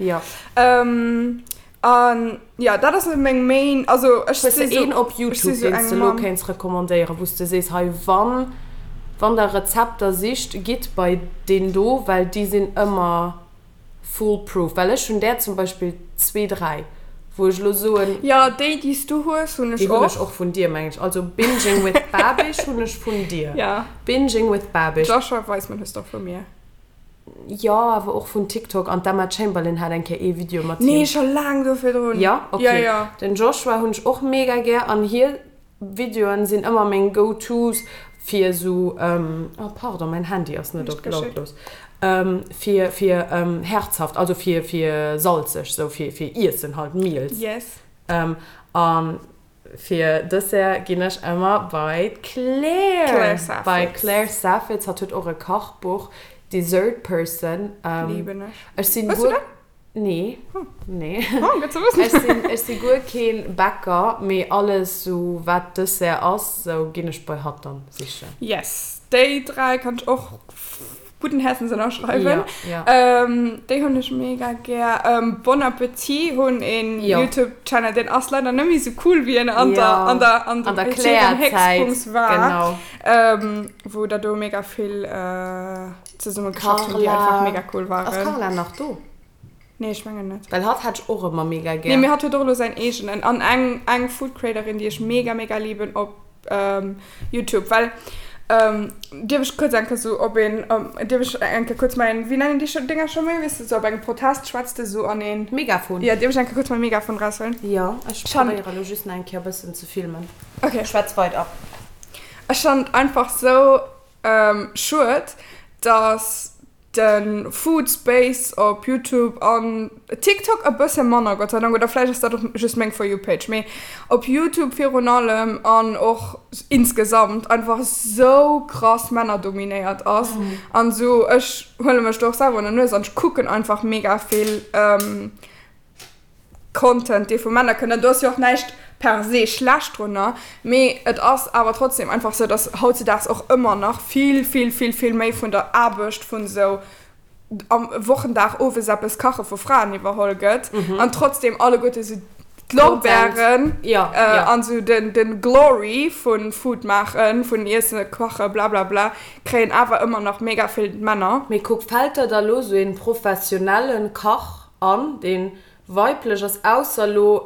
An jo, dat ass meng main, also ech si sou. Hues de een op Youtube, deen s de elo kéints recommandéieren, wou s de sees, hei wann, wann der Rezepter sicht, gitt bei deen do, well déi sinn ëmmer foolproof. Well ech hunn där zum Beispill zwee, dräi, wou ech elo soen. Jo, déi, déi s du hues, hunn ech och. Déi hunn ech och vun dir, mengen ech. Also Binging with Babish hunn ech vun dir. Binging with Babish. Joshua Weissman hues de och vu mir. Jo, awer och vun TikTok an d'Emma Chamberlain hat eng Kéier ee Video mat him. Nee, scho laang do virdrun. Jo? Ok. Jo, jo. Den Joshua hunn ech och mega gär an hir Videoen sinn ëmmer meng Go-Tos fir esou, oh pardon, mäin Handy ass net op lautlos, fir fir herzhaft, also fir fir salzeg, sou fir fir Iessen halt, Meals. Yes. An Fir Dessert ginn ech ëmmer bei d'Claire. Claire Saffitz. Bei Claire Saffitz. Hatt huet och e Kachbuch, Dessert Person. Liben ech. Ech sinn Hues du guer. dat? Nee. Nee. Oh, gutt ze wëssen. Ech sinn, ech si guer keen Bäcker, mee alles sou wat Dessert ass, sou ginn ech bei hatt dann sichen. Yes, déi 3 kann ech och gudden Häerzens ënnerschreiwen. Ja, ja. Ähm, déi hunn ech mega gär. Ähm, Bon Appetit hunn een Jo. YouTube-Channel, deen ass leider net méi sou cool, wéi en an Ja. der, an der, an An der dem hirem Claire-Zäit, Héchstpunkt war. genau. Ähm, wou der do mega vill äh, zesumme geschafft hunn, déi Carla. einfach mega cool Ass waren. Carla nach do? Nee, ech mengen net. Well hatt hat ech och ëmmer mega Nee, gär. mee hatt huet och elo säin eegenen. An eng, eng Food Creatorin, déi ech mega, mega liben op YouTube, well, dierf ech kuerz eng Kéier sou op een, dierf ech eng Kéier kuerz mäin, wéi nennen déi scho Dénger scho méi, weess de, sou op engem Protest schwätz de sou an een. Megafon. Jo, dierf ech eng Kéier kuerz mäi Megafon raushuelen? Jo, ech probéiere elo just nach eng Kéier e bëssen ze filmen. Ok. Schwätz weider. Ech fannen et einfach sou schued, dass de Food Space op Youtube an TikTok e bësse manner, Gott sei Dank, oder vläicht ass dat och just meng For You Page, mee op Youtube virun allem an och insgesamt einfach sou krass männerdominéiert ass an sou, ech huele mech do och selwer un der Nues an ech kucken einfach mega vill Content, dee vu Männer kënnt, an do ass jo och näischt per se schlecht drunner, mee et ass awer trotzdem einfach sou, dass hautzedaags och ëmmer nach vill, vill, vill, vill méi vun der Aarbecht vun esou am Wochendag owes eppes kache vu Fraen iwwerholl gëtt an trotzdem alleguerte sou d'Lorbeeren an sou den, den Glory vu Food maachen, vun Iessen, kache, blablabla, kréien awer ëmmer nach mega vill d'Männer. Mee kuck, fält der da lo sou een professionellen Kach an, deen weiblech ass, ausser lo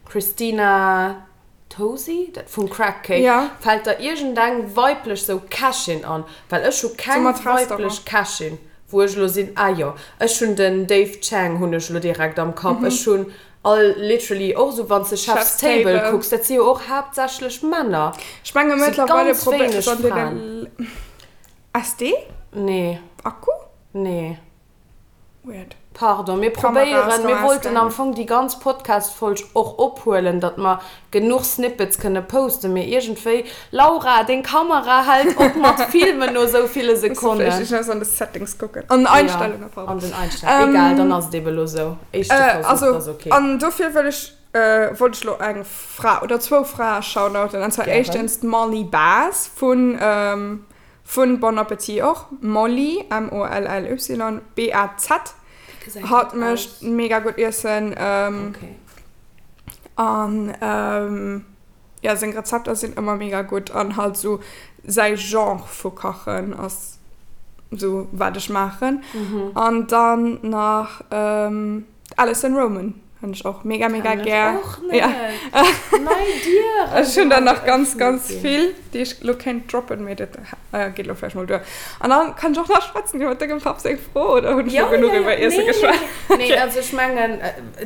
Christina Tosi, dat vum Crack Cake, Ja. Fällt der iergendeng weiblech sou Kächin an? Well ech hu So keng mat weiblech Restaurant. Kächin, wou ech lo sinn, ah jo, ech hunn den Dave Chang hunn ech lo direkt am Kapp, ech hunn all literally och sou wann s de Chef's Chef's Table Table. kucks, dat si jo och haaptsächlech Männer, Ech menge si mëttlerweile ganz probéiert wéineg an Fraen. deene SD? Nee. Akku? Nee. Weird. Pardon, mir Kamera ass probéieren, mir rem wollten am ausgaangen. Fong déi ganz Podcast-Folg och ophuelen, datt mer genuch Snippets kënne posten, mee iergendwéi, Laura, deng Kamera hält op mat filmen no esou ville Muss de vläicht Sekonnen. iergendwas an de Settings kucken. An den Einstellungen, Jo, pardon. an den Einstellungen. Egal, dann ass et ebe lo sou. Éischte Versuch, Also, ass ok. an dofir wëll ech, wollt ech lo eng Fra oder zwou Frae shoutouten, an zwar Gären. éischtens d'Molly Baz vun Vun Bon Appetit och, Molly, M-O-L-L-Y, B-A-Z. Hatt mécht mega gutt Iessen. An jo, seng Rezepter sinn ëmmer mega gutt an halt sou säi Genre vu Kachen ass sou wat ech maachen. An dann nach d'Alison Roman. Hunn ech och mega mega gär. Och net. Ja. Nei Dieren. Ech hunn der nach ganz ganz vill, déi ech lo kéint droppen, mee dat geet lo vläicht mol duer. An dann kann ech och nach schwätzen iwwer dengem Papp seng Fro, oder hunn ech lo genuch iwwer Iesse geschwat? Nee, also ech mengen,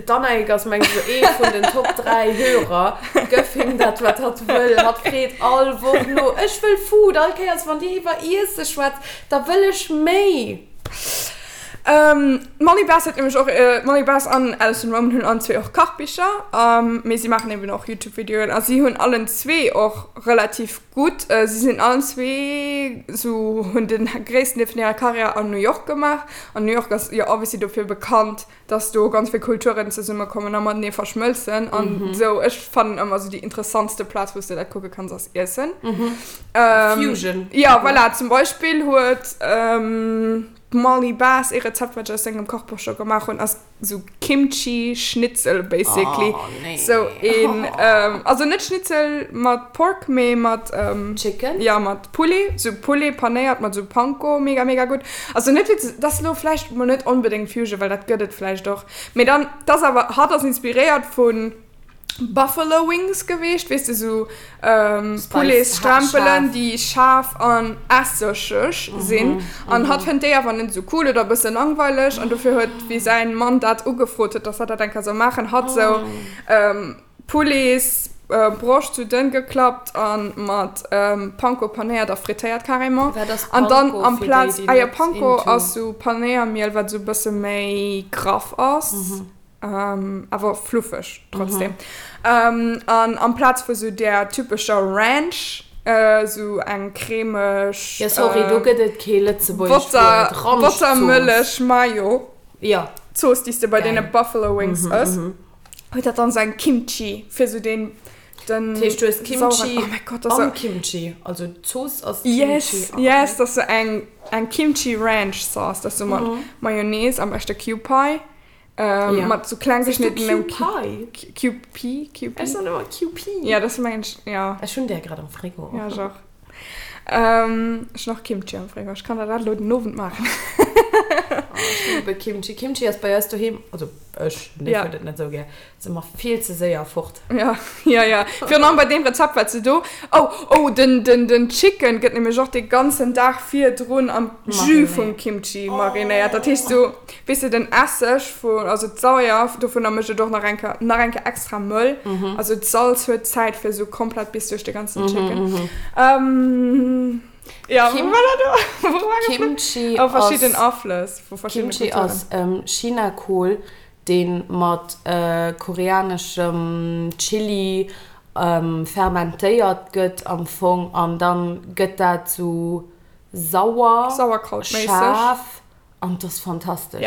d'Annaïg ass meng ech ee vun den Top 3 Hörer. Gëff him dat wat hatt wëll. Hatt freet all Woch no, ech wëll Food. All Kéiers wann dir iwwer Iesse schwätzt, da wëll ech méi. D'Molly Bess huet nämlech och, d'Molly Bess an Alison Roman hunn allen zwee och Kachbicher, mee si maachen eben och Youtube-Videoen a si hunn allen zwee och relativ gutt, si sinn allen zwee sou, hunn de gréissten Deel vun hirer Karriär an New York gemaach an New York ass jo obviously dofir bekannt, dass do ganz vill Kulturen zesummekommen a matenee verschmëlzen an sou. Ech fannen ëmmer sou déi interessantste Plaz, wou s de dat kucke kanns, ass Iessen. Fusion. Jo, voilà, zum Beispill huet. D'Molly Bass, ee Rezept wat ech aus sengem Kochbuch scho gemaach hunn, ass sou Kimchi Schnitzel basically. Oh nee. Sou een, also net Schnitzel mat Pork, mee mat Chicken? Jo, mat Poulet, sou Poulet panéiert mat sou Panko, mega mega gutt. Also net fir ze, dat ass lo vläicht mol net onbedéngt Fusion, well dat gëtt et vläicht och, mee dann, dat ass awer, hatt ass inspiréiert vun Buffalo Wings geweecht, weess de sou Pouletsstrempelen déi schaarf an essegeg sinn an hatt fënnt déi awer net esou cool oder e bësse langweileg an dofir huet wéi säin Mann dat ugefrot huet dass hatt dat eng Kéier soll maachen hatt sou Pouletsbroscht sou dënn geklappt an mat Panko panéiert a frittéiert carrément an dann amplaz ah jo Panko ass sou Panéiermiel wat sou e bësse méi graff ass. Awer fluffeg trotzdem. An amplaz vu sou där typescher Ranch, sou eng cremeg. Jo sorry, do gëtt et kee lëtzebuergescht Wuert, Ranchzooss. Bottermëllech Mayo. Jo. Zooss, déi s de bei deene Buffalo Wings ëss, huet dat dann sou eng Kimchi, fir sou deen, den. Dat heescht, du hues Kimchi oh mäi Gott, dat am Kimchi, also d'Zooss ass Kimchi. Yes, yes, dat ass sou eng, eng Kimchi Ranch Sauce, dat ass sou mat Mayonnaise, am beschte Kewpie. Ähm, Ja. Mat so kleng Siehst du geschnittenem Q-Pie? QP? QP? Ech soen ëmmer QP. Ja, das mengen ech, ja. Ech hunn där grad am Frigo. Ja, ech och. Ähm, ech hunn och Kimchi am Frigo. Ech kann der dat elo den Owend maachen. Oh, ech liebe Kimchi. Kimchi ass bei eis doheem, also ech, den Dave Ja. huet et net esou gär, ass ëmmer vill ze séier fort. Ja, ja, ja. Virun allem bei deem Rezept, wat se do. Oh, oh, den, den, den Chicken gëtt nämlech och dee ganzen Dag virdrun am Jus vum Kimchi marinéiert. Dat heescht so, weess de, den Esseg vun, also d'Sauer dovunner mécht et och nach eng Kéier, nach eng Kéier extra mëll. Also d'Salz huet Zäit fir esou komplett bis duerch de ganzen Chicken. Ähm, ja, wou war dat do? Wou war dat? Kimchi Oh, verschidden ass, Aflëss vu verschiddene Kimchi Kulturen. ass Chinakohl, deen mat koreaneschem Chili fermentéiert gëtt am Fong an dann gëtt dat sou sauer, schaarf an 't ass fantastesch.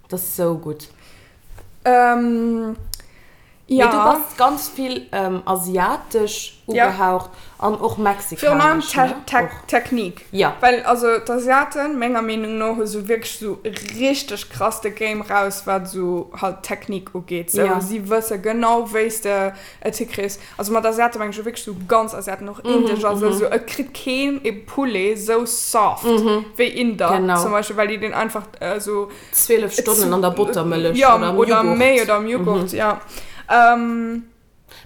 't ass sou gutt. Mee du bass ganz vill asiatesch ugehaucht an och Virun allem mexikanesch, ne? Och. Technique. Ja. Well also d'Asiaten, menger Meenung no, hu sou wierklech sou richteg krass de Game raus, wat sou halt Technique ugeet. Sou Ja. si wësse genau wéi s de et hikriss. Also mat Asiate meng ech jo wierklech sou ganz Asiaten, och Indesch a sou. Sou et kritt keen e Poulet sou soft wéi Inder Genau. zum Beispill, well déi deen einfach sou 12 Stonnen an der Bottermëllech ja, oder am oder Joghurt. méi oder am Joghurt, ja.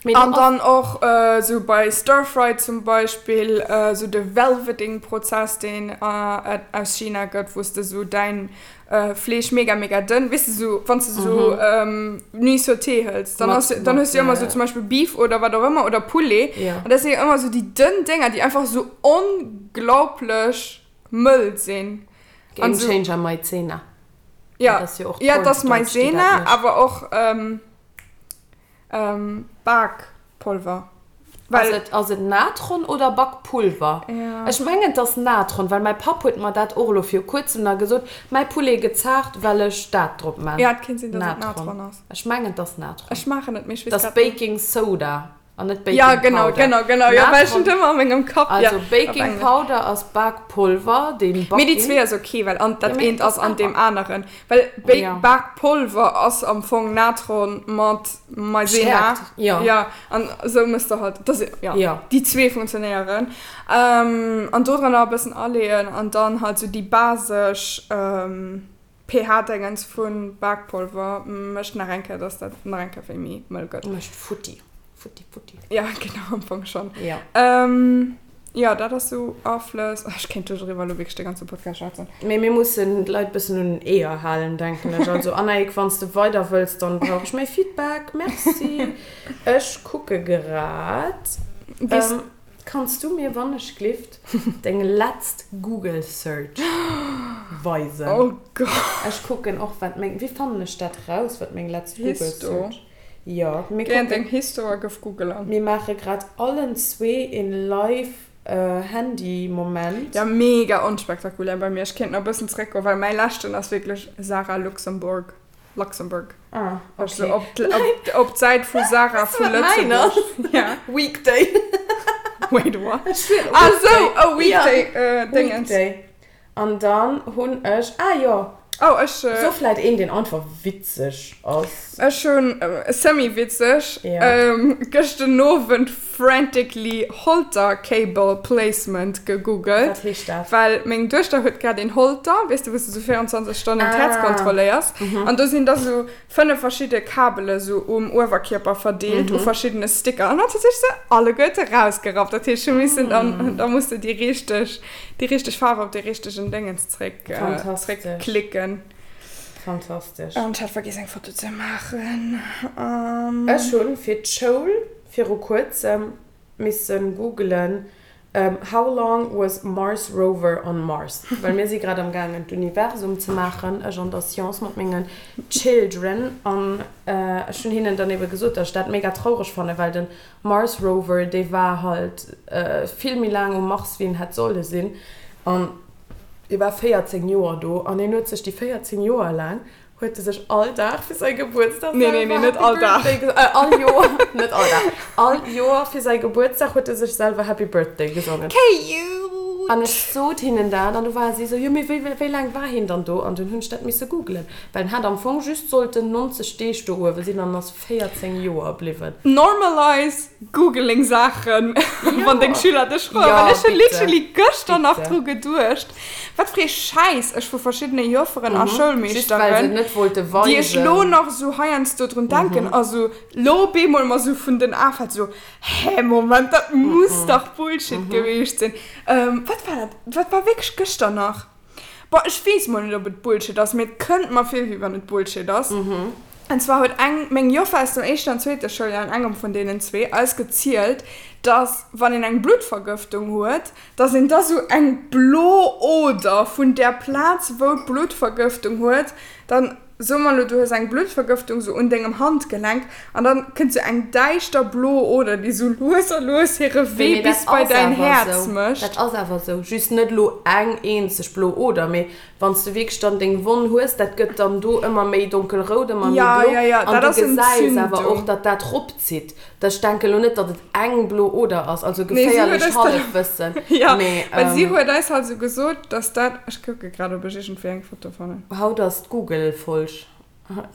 Mee do An ass. dann och esou bei Stir Fry zum Beispill esou de Velveting Prozess deen et aus China gëtt, wou s de esou däin Fleesch mega mega dënn, weess de esou wann s de esou Nuits sautée hëls, dann ass dann hues de jo ëmmer esou zum Beispill Beef oder wat och ëmmer oder Poulet an dat sinn jo ëmmer esou déi dënn Dénger déi einfach esou onglaublech mëll sinn. Game Changer Maizena. Ja, ja et ass Maizena awer och. Bakpolver. Ass et, ass et Natron oder Bakpulver? Ja. Ech mengen et ass Natron, well mäi Papp huet mer dat och elo viru kuerzem nach gesot, mäi Poulet gëtt zaart, well ech dat drop man. Ja, et kéint sinn, dass et Natron ass. Ech mengen et ass Natron. Ech maachen et, mee ech weess Dat grad ass net. Baking Soda an net Baking Ja, genau, Powder. genau, genau. Jo, well ech Natron, hunn et ëmmer a mengem Kapp, ja, also op Baking Englesch. Powder ass Bakpolver, deen Mee déi Baking. zwee ass ok, well an Ja, dat mee eent et ass ass an deem awer. aneren. Well Bake, Ja. Bakpolver ass am Fong Natron mat Maizena. Stärkt, ja. Ja, an esou mëss de halt, das, ja, Ja. déi zwee funktionéieren. Ähm, an do dran nach e bëssen aleeën an dann halt sou déi basesch, ähm. pH-Dingens vu Bakpolver mécht nach eng Kéier, dass dat nach eng Kéier wéi méi mëll gëtt. Mécht futti. Futti, futti. Ja, genau, am Fong schonn. Ja. Jo, dat ass sou Aflëss. Ech kéint doriwwer elo wierklech de ganze Podcast schwätzen. Mee mir mussen d'Leit bëssen un den Eeër halen, denken ech. Also Annaïg, wann s de weider wëlls, dann brauch ech méi Feedback. Merci. Ech kucke grad. Kanns du mir wannechglift deng letzt Google Search weisen? Oh Gott. Ech kucken och wat meng, wéi fannen ech dat raus wat meng letzt Google Histo. Search? Jo, mir Géi an kucken. deng Histo a gëff Google an. Mir maache grad allen zwee een live Handy Moment. Jo, mega onspektakulär bei mir. Ech kéint nach e bëssen zeréckgoen, well mäi leschten ass wierklech Sarah Luxembourg. Luxembourg. Ah, okay. Also op, op, op d'Säit vu Sarah vu Lëtzebuerg. Ja. Weekday. Wait, what? Ah, sou, oh, Weekday, ja. äh, Dingens. Weekday. An dann hunn ech, ah jo. Oh, ech. So vläit een, deen einfach witzeg ass. Ech hunn, äh, semi-witzeg, ja. ähm, gëscht den Owend frantically Holter Cable Placement gegoogelt. Wat heescht dat? Well meng Duechter huet grad een Holter, weess de, wou s de sou 24 Stonnen d'Häerz kontrolléiers. An do sinn da sou 5 verschidde Kabele sou um Uewerkierper verdeelt u verschiddene Sticker. An hatt huet sech se alleguerte rausgerappt. Dat heescht, ech hu missen dann, da muss de déi richteg, déi richteg Faarf op dee richtegen Déngens zréck, zréckklicken. Fantastesch. An ech hat vergiess eng Foto ze maachen. Ech hunn fir d'Schoul viru kuerzem missen googelen How long was Mars Rover on Mars? Well mir si grad am gaangen d'Universum ze maachen, ech an der Science mat mengen Children an ech hunn hinnen dann ebe gesot, datt ech dat mega traureg fannen, well den Mars Rover dee war halt vill méi laang um Mars wéi en hätt solle sinn an dee war 14 Joer do an hien huet sech déi 14 Joer laang huet e sech all Dag fir säi Gebuertsdag Nee, nee, nee, net all Dag. Birthday äh, all Joer, net all Dag, all Joer fir säi Gebuertsdag huet e sech selwer Happy Birthday gesongen. Cute! An ech sot hinnen dat an du ware si esou, jo mee wéi, wéi laang war hien dann do? An dunn hunn ech dat misse googelen, well en hat am Fong just sollten 90 Deeg do uewe sinn an ass 14 Joer bliwwen. Normalize googling Saachen, wann deng Schüler dech froen, well ech hunn literally gëschter nach dru geduecht. Wat fir ee Schäiss ech vu verschiddene Jofferen a Schoulmeeschteren, déi ech lo nach esou heiansdo drun denken a sou lo bemol mer sou vun den Ae fält, sou, hä Moment, dat muss dach Bullshit gewiescht sinn. Wat war dat? Dat war wierklech gëschter nach. Bon, ech weess mol net, ob et Bullshit ass, mee et kënnt mer vir, wéi wann et Bullshit ass. An zwar huet eng, meng Joffer aus dem éischten an zweete Schouljoer, an engem vun deenen zwee, eis gezielt, dass, wann een eng Bluttvergëftung huet, dass een da sou eng blo Oder vun där Plaz wou d'Bluttvergëftung huet, dann soe mer elo du hues eng Bluttvergëftung sou un dengem Handgelenk an dann kënnt sou eng däischter blo Oder déi sou lues a lues hire Wee Mee dat bis bei ass däin awer Häerz sou, mécht. dat ass awer sou, just net elo eng eenzeg blo Oder, mee wann s de wierklech dann deng Wonn hues, dat gëtt dann do ëmmer méi donkelrout, ëmmer méi Ja, blo ja, ja, an dat du ass gesäis awer och, Entzündung. datt dat ropzitt. Ech denken elo net, datt et eng blo Oder ass, also Nee, si huet geféierlecht eis dat, Hallefwëssen, ja, mee well si huet eis halt esou gesot, dass dat, ech kucke grad, ob ech iergendwéi eng Foto fannen. Haut ass d'Google-Folg,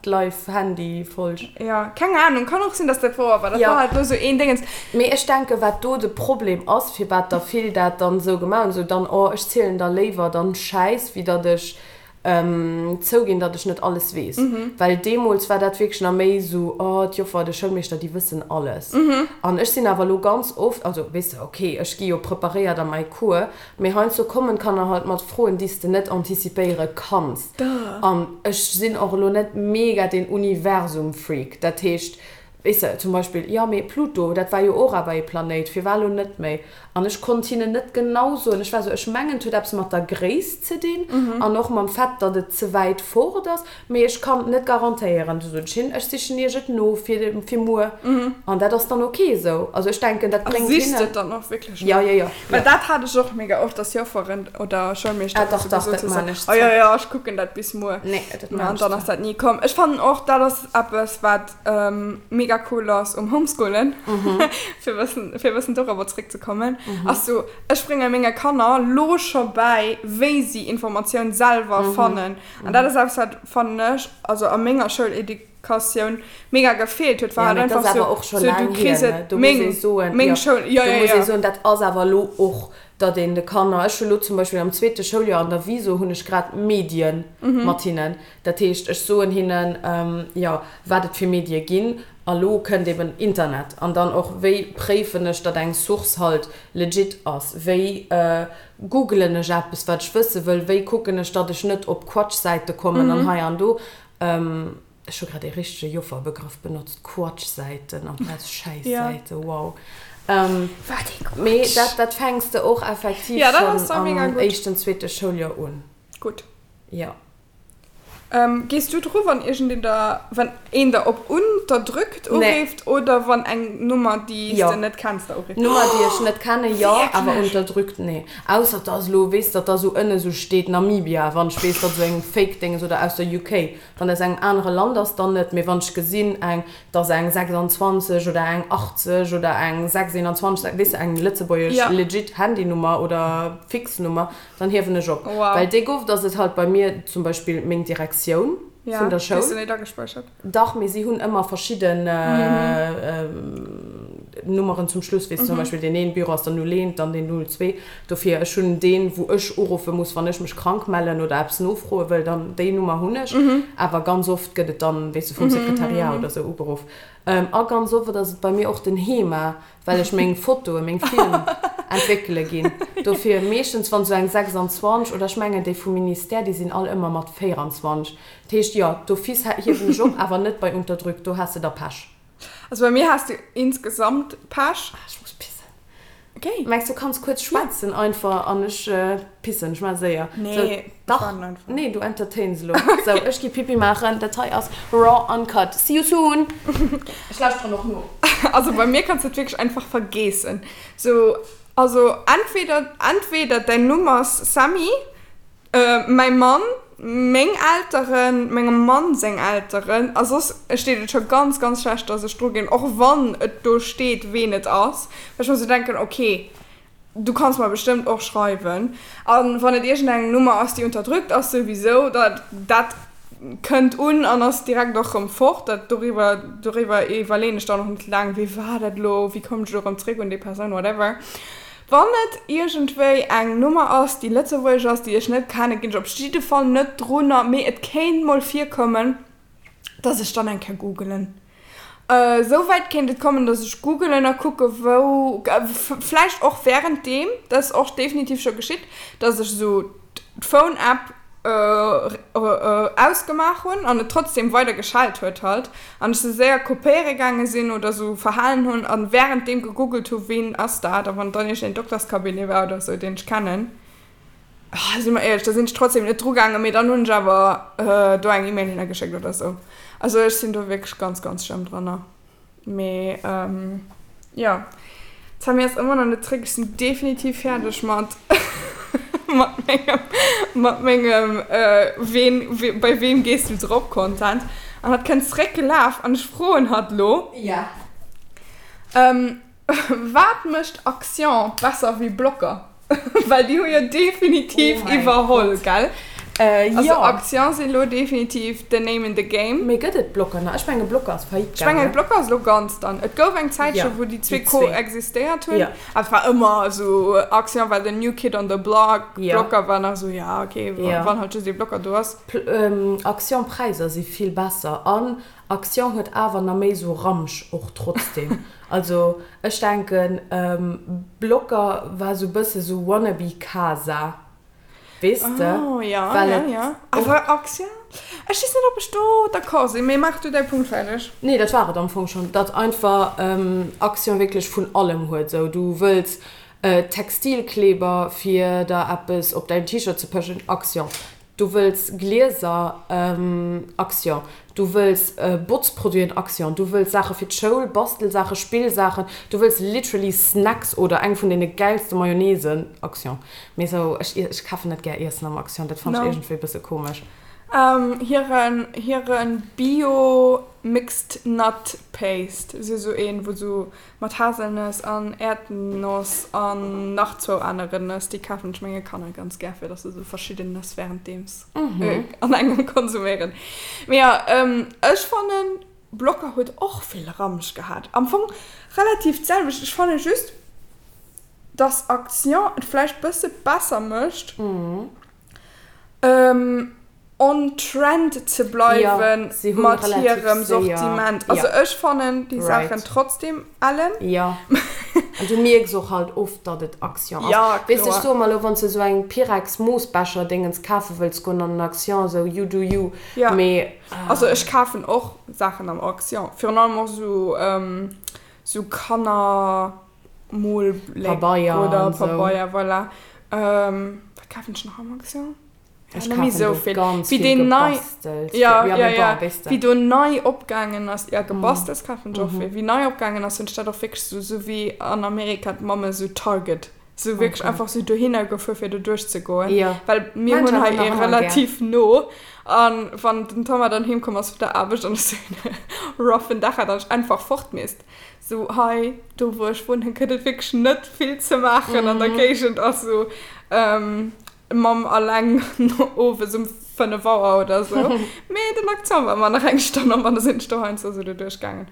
d'Live-Handy-Folg. Ja, keng Ahnung, kann och sinn, dass dat wouer war, dat Ja. war halt elo esou een Déngens. Mee ech denken, wat do de Problem ass, firwat der vill dat dann esou gemaach hunn, esou dann, oh, ech zielen der léiwer dann Schäiss, wéi datt ech Zouginn, datt ech net alles weess. Well deemools war dat wierklech nach méi esou, oh, d'Joffer, de Schoulmeeschter, déi wëssen alles. An ech sinn awer elo ganz oft, also weess de, ok, ech gi jo preparéiert a mäi Cours, mee heiansdo kommen d'Kanner halt mat Froen, déi s de net antizipéiere kanns. An ech sinn och elo net mega den Universum-Freak. Dat heescht, Weess de, zum Beispill, jo, mee Pluto, dat war jo och awer ee Planéit, firwat elo net méi? An ech konnt hinnen net genau soen. Ech war esou, ech mengen, et huet eppes mat der Gréisst ze dinn an och mam Fait, datt et ze wäit fort ass, mee ech kann et net garantéieren. Du sot ech hinnen, ech sichen iech et no fir, fir muer. An dat ass dann ok esou. Also ech denken, dat A bréngt sichs de hinnen. et dann och wierklech no? Jo, jo, jo, Well jo. dat hat ech och mega oft, dass Jofferen oder Ah, Schoulmeeschteren dach, esou dach, gesot dat hu maan sou, ech oh jo, zwar. jo, ech kucken dat bis muer. Nee, dat Mä maan an ech dann ass zwar. dat ni komm. Ech fannen och, dat ass eppes, wat mega cool ass um Homeschoolen, fir bëssen, fir bëssen dorobber zréckzekommen, ass sou, ech brénge menge Kanner lo scho bäi, wéi si Informatioun selwer fannen. An dat ass eppes, wat, fannen ech, also a menger Schouleducatioun mega gefeelt huet, war Ja, halt mee dat einfach ass sou, awer och scho sou du laang hier, kriss ne? et, Do muss ee meng, soen, meng jo, Schoul, jo, do jo, muss ee jo. soen, dat ass awer elo och. Datt een de Kanner, ech hu lo zum Beispill am zweete Schouljoer an der Viso hunn ech grad Medien mat hinnen. Dat heescht, ech soen hinnen, jo, wat et fir Medie ginn. A lo kënnt eben Internet. An dann och, wéi préifen ech, datt eng Source halt legit ass? Wéi googelen ech eppes, wat ech wësse wëll? Wéi kucken ech, datt ech net op Quatschsäite kommen an hei an do? Ech hu grad ee richtege Jofferbegrëff benotzt, Quatschsäiten amplaz Schäissäiten, wow. Wat ee Quatsch! Mee dat, dat fänks de och effektiv schonn am éischten, zweete Schouljoer un. Gutt. Jo. Gees du dru wann iergendeen der, wann een der op unterdrückt urifft oder wann eng Nummer déi s de net kenns der urifft? Nummer déi ech net kenne jo, awer unterdrückt nee. Ausser et ass elo, weess datt da sou ënne sou steet Namibia, wann ech weess datt sou eng Fake Dénges oder aus der UK. Wann aus engem anere Land ass, dann net. Mee wann ech gesinn, eng, et ass eng 26 oder eng 80 oder eng 621, weess de, eng lëtzebuergesch legit Handynummer oder Fixnummer, Dann hiewen ech op. Wow. Well déi gouf, dass et halt bei mir zum Beispill meng Direktioun Ja, vun der déi Schoul. hues du net agespäichert. Dach, mee si hunn ëmmer verschidden Nummeren zum Schluss, weess, zum Beispill deen een Büro ass dann 01, dann deen 02. Dofir, ech hunn deen, wou ech uruffe muss, wann ech mech krank mellen oder eppes nofroe wëll, dann déi Nummer hunn ech. Awer ganz oft gëtt et dann, weess de, vum Sekretariat oder sou ugeruff. A ganz oft ass et bei mir och den HEMA, well ech meng Fotoen, meng Film entwéckele ginn. Dofir meeschtens wann sou eng 26 oder ech mengen déi vum Ministère, déi sinn all ëmmer mat 24. Dat heescht jo, d'office hiewen ech op, awer net bei Unterdrück, do has de da Pech. Also bei mir has de insgesamt Pech. Ah, ech muss pissen. Okay. Mengs du kanns kuerz schwätzen einfach an ech pissen, ech maache séier. Nee, Sou, ech dach, waarden einfach. Nee, du entertains elo. Sou, ech gi Pipi maachen, dat hei ass raw uncut. See you soon! Ech lauschteren och no. Also bei mir kanns du et wierklech einfach vergeessen. Sou, also entweder, entweder däin Numm ass Sammy, mäi Mann, meng Elteren, mengem Mann seng Elteren, a soss steet et scho ganz, ganz schlecht, dass ech dru ginn, och wann et do steet, ween et ass, well ech mer sou denken, okay, Du kanns mer bestëmmt och schreiwen. A wann et iergendeng Nummer ass, déi unterdrückt ass, souwisou, da dat kënnt un an ass direkt och rëm fort. Dat doriwwer doriwwer iwwerleeën ech dann och net laang, wee war dat elo, wéi koum ech elo rëm zréck un déi Persoun, whatever. Wann et iergendwéi eng Nummer ass, déi lëtzebuergesch ass, déi ech net kennen, ginn ech op jidde Fall net drunner. Mee et kéint mol virkommen, dass ech dann eng Kéier googelen. Esou wäit kéint et kommen, dass ech googelen a kucke wou, vläicht och wärenddeem, dat ass och definitiv scho geschitt, dass ech esou d'Phone-App ausgemaach hunn an et trotzdem weider geschellt huet halt an ech se séier kopéiere gaange sinn oder esou verhalen hunn a wärenddeem gegoogelt hu ween ass dat a wann et dann iergendeen Dokterscabinet war oder esou deen ech kennen. Si mer éierlech, da sinn ech trotzdem net dru gaangen, mee dann hunn ech awer do eng E-Mail hinner geschéckt oder sou. Also ech sinn do wierklech ganz, ganz schlëmm dranner. Mee jo, d'Sammy ass ëmmer nach net zréck. Ech sinn definitiv fäerdeg mat mat mengem mat mengem ween bei weem gees du drop Content. An hatt kënnt zréck gelaf an ech froen hatt lo. Ja. Wat mécht Action besser wéi Blocker? Well déi hu jo definitiv Oh mäi iwwerholl, Gott. gell? Äh, Also jo. Action si lo definitiv the name in the game. Mee gëtt et Blocker nach? Ech menge Blocker ass faillite Ech mengen gaangen. Blocker ass lo ganz dann. Et gouf eng Zäitche Ja, wou déi déi zwee zwee. koexistéiert hunn. Ja. Awer et war ëmmer esou, Action war the new kid on the block, Ja. Blocker war nach esou, ja okay, Ja. wann halt just ee Blocker do ass. Pl ähm, Action Präisser si vill besser an Action huet awer na méi sou Ramsch och trotzdem. Also ech denken Blocker war sou bësse sou wannabe Casa, weess de? Oh ja, Well ja, et ja. och. Awer Action, ech weess net ob ech do d'accord sinn, mee maach du däi Punkt fäerdeg. Nee, dat war et am Fong schonn, datt einfach Action wierklech vun allem huet. Sou du wëlls Textilkleber fir der eppes op däin T-Shirt ze pëschen, Action. Du wëlls Glieser, Action. Du wëlls Botzproduiten, Action. Du wëlls Saache fir d'Schoul, Bastelsaachen, Spillsaachen. Du wëlls literally Snacks oder eng vun deene gäilste Mayonnaisen, Action. Mee sou, ech, ech kafen net gär Iessen am Action, dat fannen ech No. iergendwéi e bësse komesch. Hiren, hiren Bio Mixed Nut Paste, si sou een, wou sou Mat Haselnëss an Äerdnoss an nach zwou aneren Nëss. Déi kafen ech menge Kanner ganz gär, fir dass se sou verschidden Nëss währenddeems an engem konsuméieren. Mee jo, ech fannen Blocker huet och vill Ramsch gehat. Am Fong relativ d'selwecht. Ech fanne just. Dass Action et vläicht bësse besser mécht, on trend ze bleiwen mat hirem Sortiment. Also ech fannen déi Saachen trotzdem ellen. Jo, an du mierks och halt oft, datt et Action ass. Weess de, ech soe mer elo, wann s de esou eng Pyrex-Moossbecher-Dingens kafe wëlls goen an den Action, esou you do you, mee. Also ech kafen och Saachen am Action, virun allem och esou Kanner. Molbléck oder Pabeier, voilà. Wat kafen ech nach am Action? Ech kafen do ganz vill Gebastels. Ja, ja, ja. Wéi do nei opgaangen ass, ja Gebastels kafen ech och vill. Wéi nei opgaangen ass, hunn ech dat och wierklech sou, sou wéi an Amerika d'Mamme sou Target, sou wierklech einfach sou dohinner gefuer fir do duerchzegoen. Well mir hunn hei ee relativ no an wann den Thomas dann heem komm ass vun der Aarbecht an ech sou en roughen Dag hat an ech einfach fort misst, Sou hei, do wou ech wunnen, gëtt et wierklech net vill ze maachen an der Géigend. Also Mamm alleng owes um 5 Auer oder sou. Mee den Akzent war ëmmer nach eng Stonn op an da sinn ech do heiansdo sou doduerch gaangen.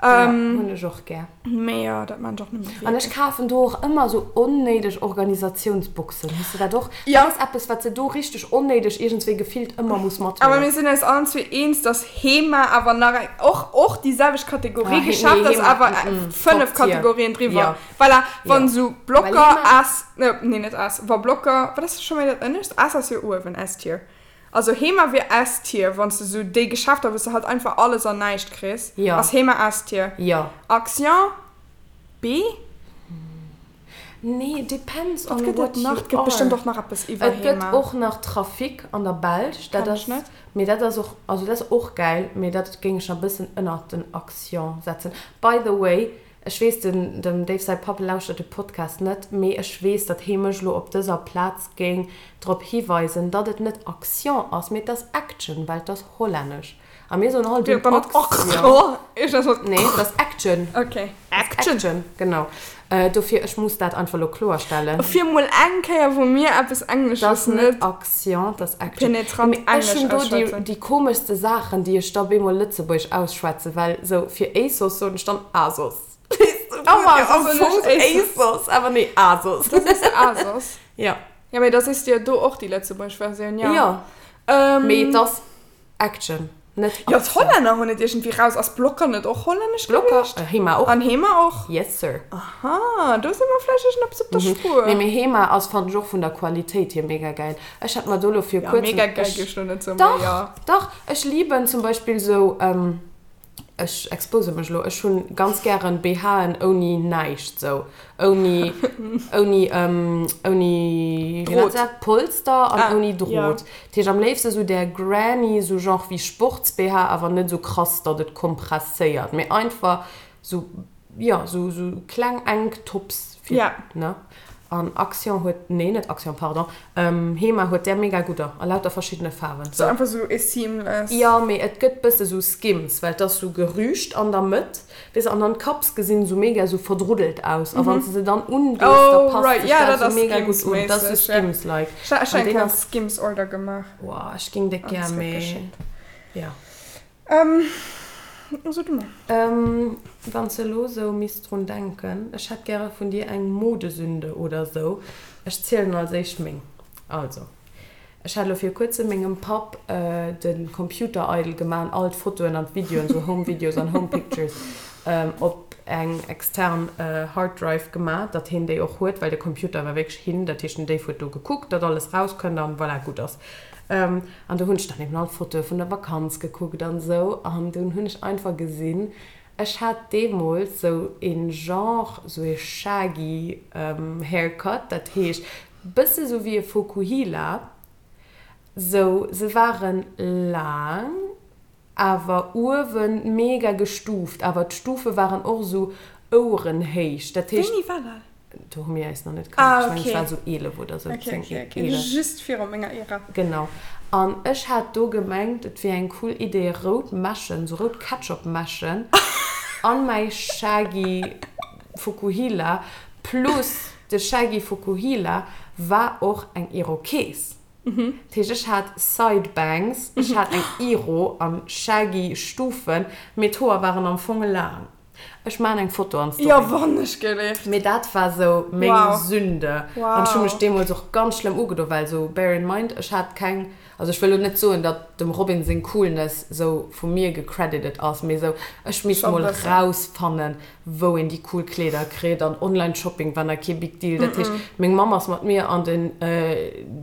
Ja, hunn ech och gär. Mee jo, dat maan ech och net méi An ech kafen do och ëmmer sou onnéideg Organisatiounsboxen. Hues de dat och? Ja. Dat ass eppes, wat se do richteg onnéideg iergendswéi gefillt ëmmer muss mathuelen. Awer mir sinn eis allen zwee eens, dass Hema awer nach eng, och, och déi selwecht Kategorie ah, Geschäft nee, ass, awer mm, 5 Kategorien driwwer. Ja. Voilà, wann ja. sou Blocker S, nee net S, wa Blocker, wat ass scho méi dat ënnescht? S ass jo uewen, S-Tier. Also Hema wier S-Tier, wann s de sou déi Geschäfter, wou s de halt einfach alles an näischt kriss, ja. ass Hema S-Tier. Ja. Action B? Nee, depends on what you are. Wat gëtt et nach? Et gëtt bestëmmt och nach eppes iwwer Hema. Et gëtt och nach Trafic an der Belsch. Dat ass, mee dat ass och, also dat ass och gäil, mee dat géing ech nach e bëssen ënnert den Action setzen. By the way, ech weess, den, dem Dave säi Papp lauschtert de Podcast net, mee ech weess, datt hee mech elo op dëser Plaz géing drop hiweisen, datt et net Action ass, mee et ass Action, well et ass hollännesch. A mir soen all den Action. Nee, et ass Action. Okay. Action. Action, genau. Dofir, ech muss dat einfach elo kloerstellen. Fir mol eng Kéier, wou mir eppes Englesches net. Dat ass net Action, dat ass Action. Penetrant Englesch auschwätzen. Ech hunn do déi komeschste Saachen, déi ech da bemol Lëtzebuergesch ausschwätzen, well sou fir ASOS soen ech dann Asos. Oh Mann, am Fong ASOS, awer nee, Asos. Da sees de Asos. Ja. Ja, mee da sees de jo do och déi lëtzebuergesch Versioun, jo. Jo. Mee et ass Action, net Aktioun. Jo, d'Hollänner hunn et iergendwéi raus. Ass Blokker net och hollännesch gewiescht? Blokker, Hema och. An Hema och? Yes, sir. Aha, do si mer vläicht iergendeppes op der Spuer. Nee, mee Hema ass, fannen ech och vun der Qualitéit hier mega gäil. Ech hat mer do lo fir kuerzem. Ja, mega gäil géif ech lo net soen, mee jo. Dach, dach, ech liben zum Beispill sou, Ech expose mech elo, ech hunn ganz gären BHen ouni näischt, sou ouni, ouni, ouni, wéi nennt se dat, Polster an ouni Drot. Dat heescht am léifste sou där Granny, sou genre wéi Sports-BH, awer net sou krass, datt et kompresséiert, mee einfach sou Jo, sou sou kleng enk Tops fir, ne? An Action huet, nee net Action, pardon, Hema huet där mega gudder a lauter verschiddene Faarwen. Sou einfach sou e seamless. Jo, mee et gëtt bësse sou Skims, well et ass sou gerüscht an der Mëtt, weess de, an dann d'Cups gesinn sou mega sou verdruddelt aus a wann s de se dann undees, da passt sech dat sou mega gutt un. Dat ass sou Skims-like. Ech hu eng kleng Skims-Order gemaach. Woah, ech géing déck gär, mee jo. So du mol. Wann s de elo sou misst drun denken, ech hätt gäre vun dir eng Modesünde oder sou. Ech zielen als éischt meng. Also, ech hat elo vir kuerzem mengem Papp de Computer eidel gemaach an all d'Fotoen an d'Videoen, sou Home Videos an Home Pictures, op eng extern Hard Drive gemaach, datt heen déi och huet, well de Computer war wierklech hin. Dat heescht, den Dave huet do gekuckt, datt alles rauskënnt an voilà, gutt ass. An do hunn ech dann eben all d'Fotoe vun der Vakanz gekuckt an esou. An dunn hunn ech einfach gesinn, ech hat deemools sou een Genre, sou ee shaggy Haircut, dat heescht bësse sou wéi e Fokuhila, sou se waren laang, awer uewen mega gestuuft, awer d'Stufe waren och esou ouerenhéich, dat heescht. Wéini war dat? Do hu mir eis nach net kannt, ech mengen ech war esou 11 oder esou, 10, 11. Ok, ok, just viru menger Ära. Genau, an ech hat do gemengt et wier eng cool Idee rout Mäschen, esou rout Ketchup-Mäschen an mäi shaggy Fukuhila, plus de shaggy Fukuhila war och eng Irokees. Dat heescht, ech hat Side Bangs, ech hat eng Iro an shaggy Stufen, mee d'Hoer waren am Fong laang. Ech maan eng Foto an d'Story. Jo, wann ech gelift. Mee dat war sou meng Wow. Sünde. An ech hu mech Wow. deemools och ganz schlëmm ugedo, well sou, bear in mind, ech hat keng, also ech wëll lo net soen, datt dem Robin seng Coolness sou vu mir gecredited ass, mee sou, ech misst Scho mol bëssen. rausfannen, wou een déi cool Kleeder kritt an Online Shopping war nach kee big deal. Dat heescht, meng Mamm ass mat mir an den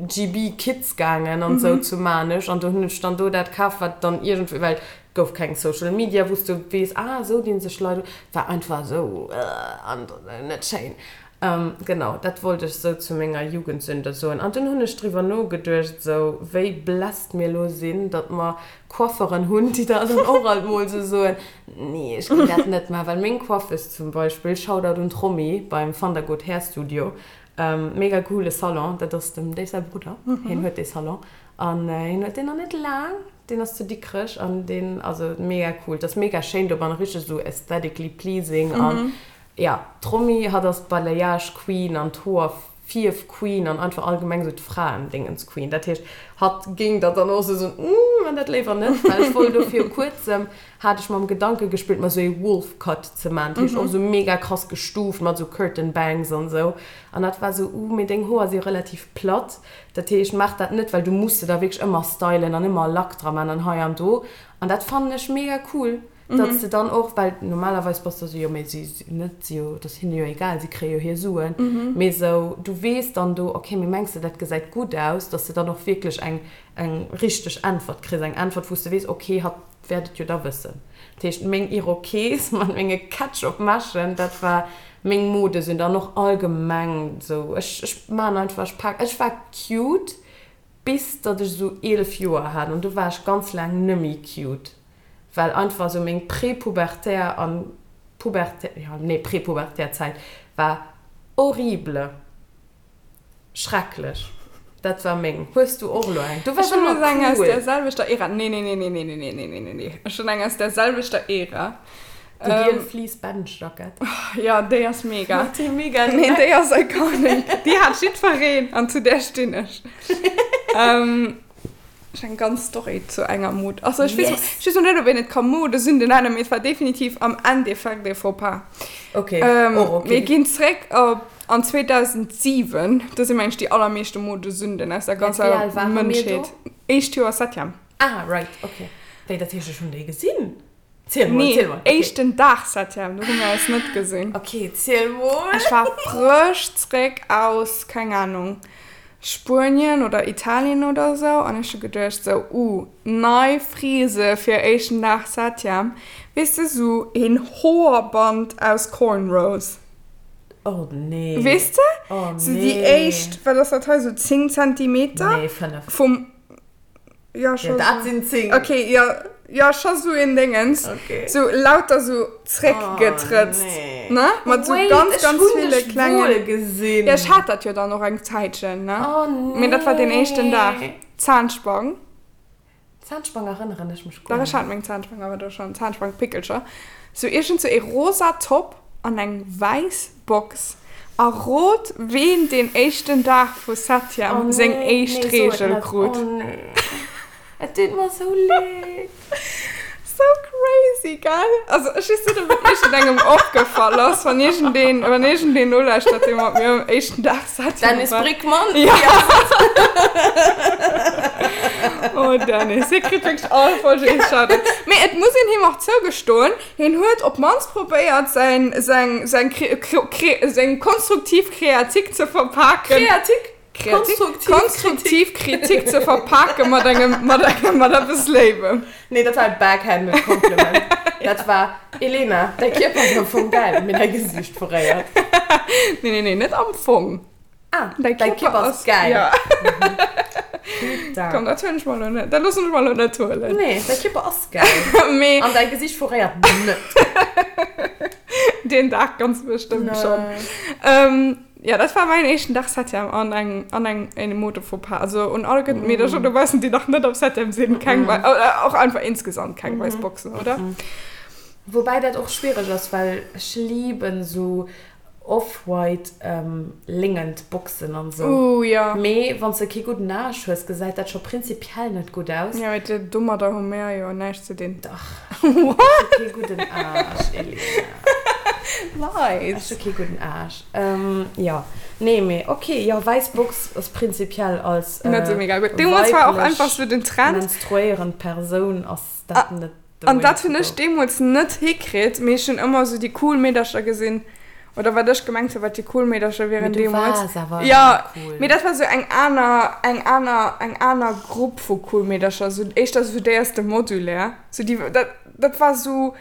GB Kids gaangen an sou zu Maarnech an do hunn ech dann do dat kaf, wat dann iergendwéi, well et gouf keng Social Media, wou s du weess, ah esou dinn sech Leit un. Et war einfach esou an net schéin. Genau, dat wollt ech sou zu menger Jugendsünde soen. An dunn hunn ech driwwer nogeduecht, sou wéi blessed mir elo sinn, datt mer Coifferen hunn, déi der dann och alt mol sou soen, Nee, ech géing dat net maachen. Well meng Coiffeuse zum Beispill, Shoutout un d'Romy beim Van der Goot Hair Studio, mega coole Salon, dat ass dem Dave säi Brudder, hien huet dee Salon an hien huet deen nach net laang, deen ass zu Dikrech an deen, also mega cool, 't ass mega schéin dobannen, richteg sou aesthetically pleasing an Jo, d'Romy, hatt ass d'Balayage Queen an d'Hoer Fierf Queen an einfach allgemeng sou d'Fraendingens Queen. Dat heescht, hatt géing der dann och sou soen, Uuh, man dat léiwer net. Well ech wollt do viru kuerzem, hat ech mam Gedanke gespillt, mer sou ee Wolf Cut ze man. Dat heescht och sou mega krass gestuuft mat sou Curtain Bangs an sou. An hatt war sou, Uuh, mee deng Hoer si relativ platt, dat heescht, maach dat net, well du muss se da wierklech ëmmer stylen an ëmmer Lack dra man an hei an do. An dat fannen ech mega cool. Datt s de dann och, well normalerweis bass de esou, jo mee si net, si jo, et ass hinne jo egal, si kréie jo hir Suen, mee esou du weess dann do, okay, mee mengs de dat gesäit gutt aus, datt s de dann och wierklech eng eng richteg Äntwert kriss, eng Äntwert wou s de weess, okay, hatt wäert et jo da wëssen. Dat heescht meng Irokes mat menge Ketchup-Meschen, dat war meng Modesünde an och allgemeng esou, ech ech man einfach, ech pak, ech war cute bis datt ech esou 11 Joer hat an du war ech ganz laang nëmmi cute. Well einfach esou meng prepubertär an pubertär, jo nee prepubertär Zäit war horrible, schrecklech. Dat war meng. Hues du och elo eng? Du waars ëmmer Ech hunn elo eng aus cool. där selwechter Ära. Nee, nee, nee, nee, nee, nee, nee, nee, nee, nee. Ech hunn eng aus där selwechter Ära. Déi giel Fleece Bench Jackett. Jo, déi ass mega. Mat deem mega Nee, déi ass iconic. Déi hat jiddwereen an zu där stinn ech. Ech eng ganz Story zu enger Mod. Also ech weess, yes. ech weess net, ob een et ka Modesünde nennen, mee et war definitiv am Endeffekt e Faux-pas. Okay, ähm, och okay. Mir ginn zréck op an 2007. Do si mengen ech déi allermeeschte Modesünden aus der ganzer Mënschheet. Éischt Joer Septième. Ah, right, okay. Wéi, dat heescht, ech hunn déi gesinn? Ziel mol, Nee, ziel mol. Okay. éischten Dag Septième, do hu mir eis net gesinn. Okay, ziel mol. Ech war frësch zréck aus, keng Ahnung, Spuenien oder Italien oder sou an ech hu geduecht sou, uh, nei Frise fir éischten Dag Septième. Weess de, sou een Hoerband aus Cornrows. Oh nee. Weess de? Oh nee. Sou déi éischt, wat ass dat hei, sou 10 Zentimeter? Nee, 5. Vum. Ja, Ja, dat sinn 10. Okay, ja, ja, scho sou een Déngens. Okay. Sou lauter sou zréckgetrëtzt. Oh, nee. Ne? Mat sou Wait, ganz, ech ganz hunn ville dech klengen. wuel gesinn. Ja, ech hat dat jo dann och eng Zäitchen, ne? Oh, nee. Mee dat war deen éischten Dag. Zahnspang. Zahnspang erënneren ech mech guer Dach, ech hat net. meng Zahnspang awer do schonn. Zahnspangpickelcher. Sou iergend sou ee rosa Top an eng wäiss Box. A rot ween deen éischten Dag vu Oh Septième seng nee, éischt nee, so et Reegel net. krut. Oh nee. Et deet mer sou leed. So crazy, gell? Also ech weess net, ob et iergendengem opgefall ass, wann iergendeen, wann iergendeen nolauschtert, dee mat mir um éischten Dag Septième Dennis war. Brickmann. Ja. Oh Dennis, hie kritt wierklech all Folge ee Shoutout. Mee et muss een him och zougestoen, Hien huet op d'mannst probéiert, säin, säin, säin kre, kre, kre, seng konstruktiv Kreatik ze verpaken. Kreatik? Kreatik? Konstruktiv Konstruktiv Kritik ze verpake mat engem, mat engem, mat eppes Léiwem. Nee, dat war e backhanded Compliment. Dat war, Elena, däi Kierper ass am Fong gäil, mee däi Gesiicht verréiert. Nee, nee, nee, net am Fong. Ah, däi Kierper ass gäil. Ja. Putain. Komm, dat huelen ech mer elo net, dat loossen ech mer elo net huelen. Nee, däi Kierper ass gäil. Mee. An däi Gesiicht verréiert net. Deen Dag ganz bestëmmt schonn. Ähm, ja, dat war mäin éischten Dag Septième an eng, an eng, eng Mode-Fauxpas. Also un all gëtt Meedercher dobaussen, déi nach net am Septième sinn, keng wei, och einfach insgesamt keng wäiss Boxen, oder? Woubäi dat och schwiereg ass, well ech liben esou Off-white léngend Boxen an sou. Ooh jo. Mee wanns de kee gudden Aasch hues, gesäit dat scho prinzipiell net gutt aus. Jo, mee domadder hu mär jo näischt ze dinn. Dach. Ech hu kee gudden Aasch, Elena. Leit. Ech hu kee gudden Aarsch. Jo, nee, mee ok, jo, wäiss Box ass prinzipiell als Net sou mega gutt. Deemools war och einfach sou den Trend. Menstruéierend Persoun ass dat net the way to go. An dat hunn ech deemools net hikritt, mee ech hunn ëmmer sou déi cool Meedercher gesinn, oder wat ech gemengt hunn, wat déi cool Meedercher wieren deemools. Mee du waars awer Jo, ëmmer cool. Mee dat war sou eng aner, eng aner, eng aner Grupp vu cool Meedercher, sou éischter sou déi aus dem Modulaire. Sou déi, dat, dat war sou.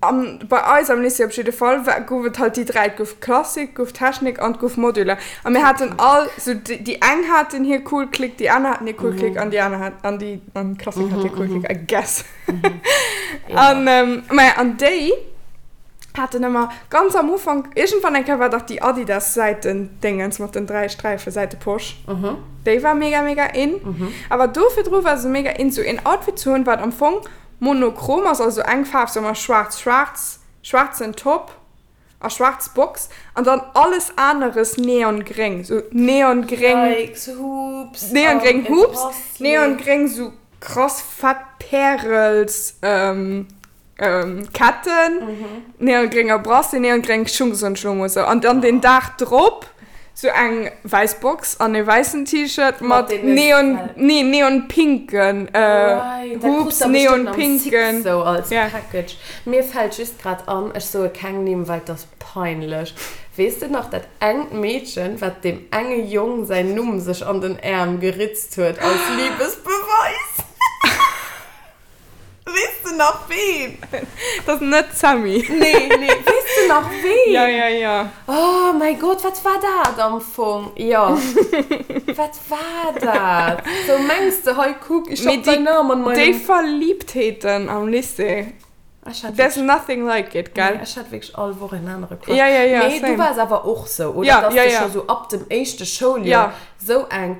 An bei eis am Lycée op jidde Fall war, gouf et halt déi dräi, et gouf Klassik, et gouf Technik an et gouf Modulaire. A mir haten all, sou déi eng haten hir cool Clique, déi aner haten hir cool Clique an déi aner hat, an déi, an d'Klassik hat hir cool Clique, I guess. An, maja, an déi haten ëmmer ganz am Ufank, iergendwann eng Kéier war dach déi Adidas-Säitendéngens mat den dräi Sträife, Säiteposch, déi war mega, mega in. Awer do virdru war se mega in, sou een Outfit ze hunn, wat am Fong Monochrom ass also eng Faarf, soe mer schwaarz, schwaarz, schwaarzen Top a schwaarz Box an dann alles aneres neongréng, sou neongréng, Yikes, Hoops neongréng an e Hoops, Bracelet. neongréng sou krass fett Pärels Ketten, neongrénger Bracelet, neongréng Schung, soen ech lo mol sou an dann den Dag drop Sou eng wäiss Box an e wäissen T-Shirt mat neon, nee, neonpinken Hoops, neonpinken. Sou als Package. Mir fällt just grad an, ech soe keng Nimm, well 't ass peinlech. Weess de nach dat engt Meedchen, wat deem enge Jong säin Numm sech an den Äerm geritzt huet als Liebesbeweis? Weess de nach ween? Dat ass net d'Sammy. Nee, nee. Weess de nach ween? Ja, ja, ja. Oh mäi Gott, wat war dat am Fong? Jo, wat war dat? Sou mengs de, hei kuck, ich hab dein Namen an meinem. Déi Verliebtheeten am Lycée, there's nothing like it, gell? Nee, ech hat wierklech all Woch en anere Crush. Ja, ja, ja, same. Mee du waars awer och sou, oder? Ja, ja, ja. Dass de scho sou ab dem éischte Schouljoer sou eng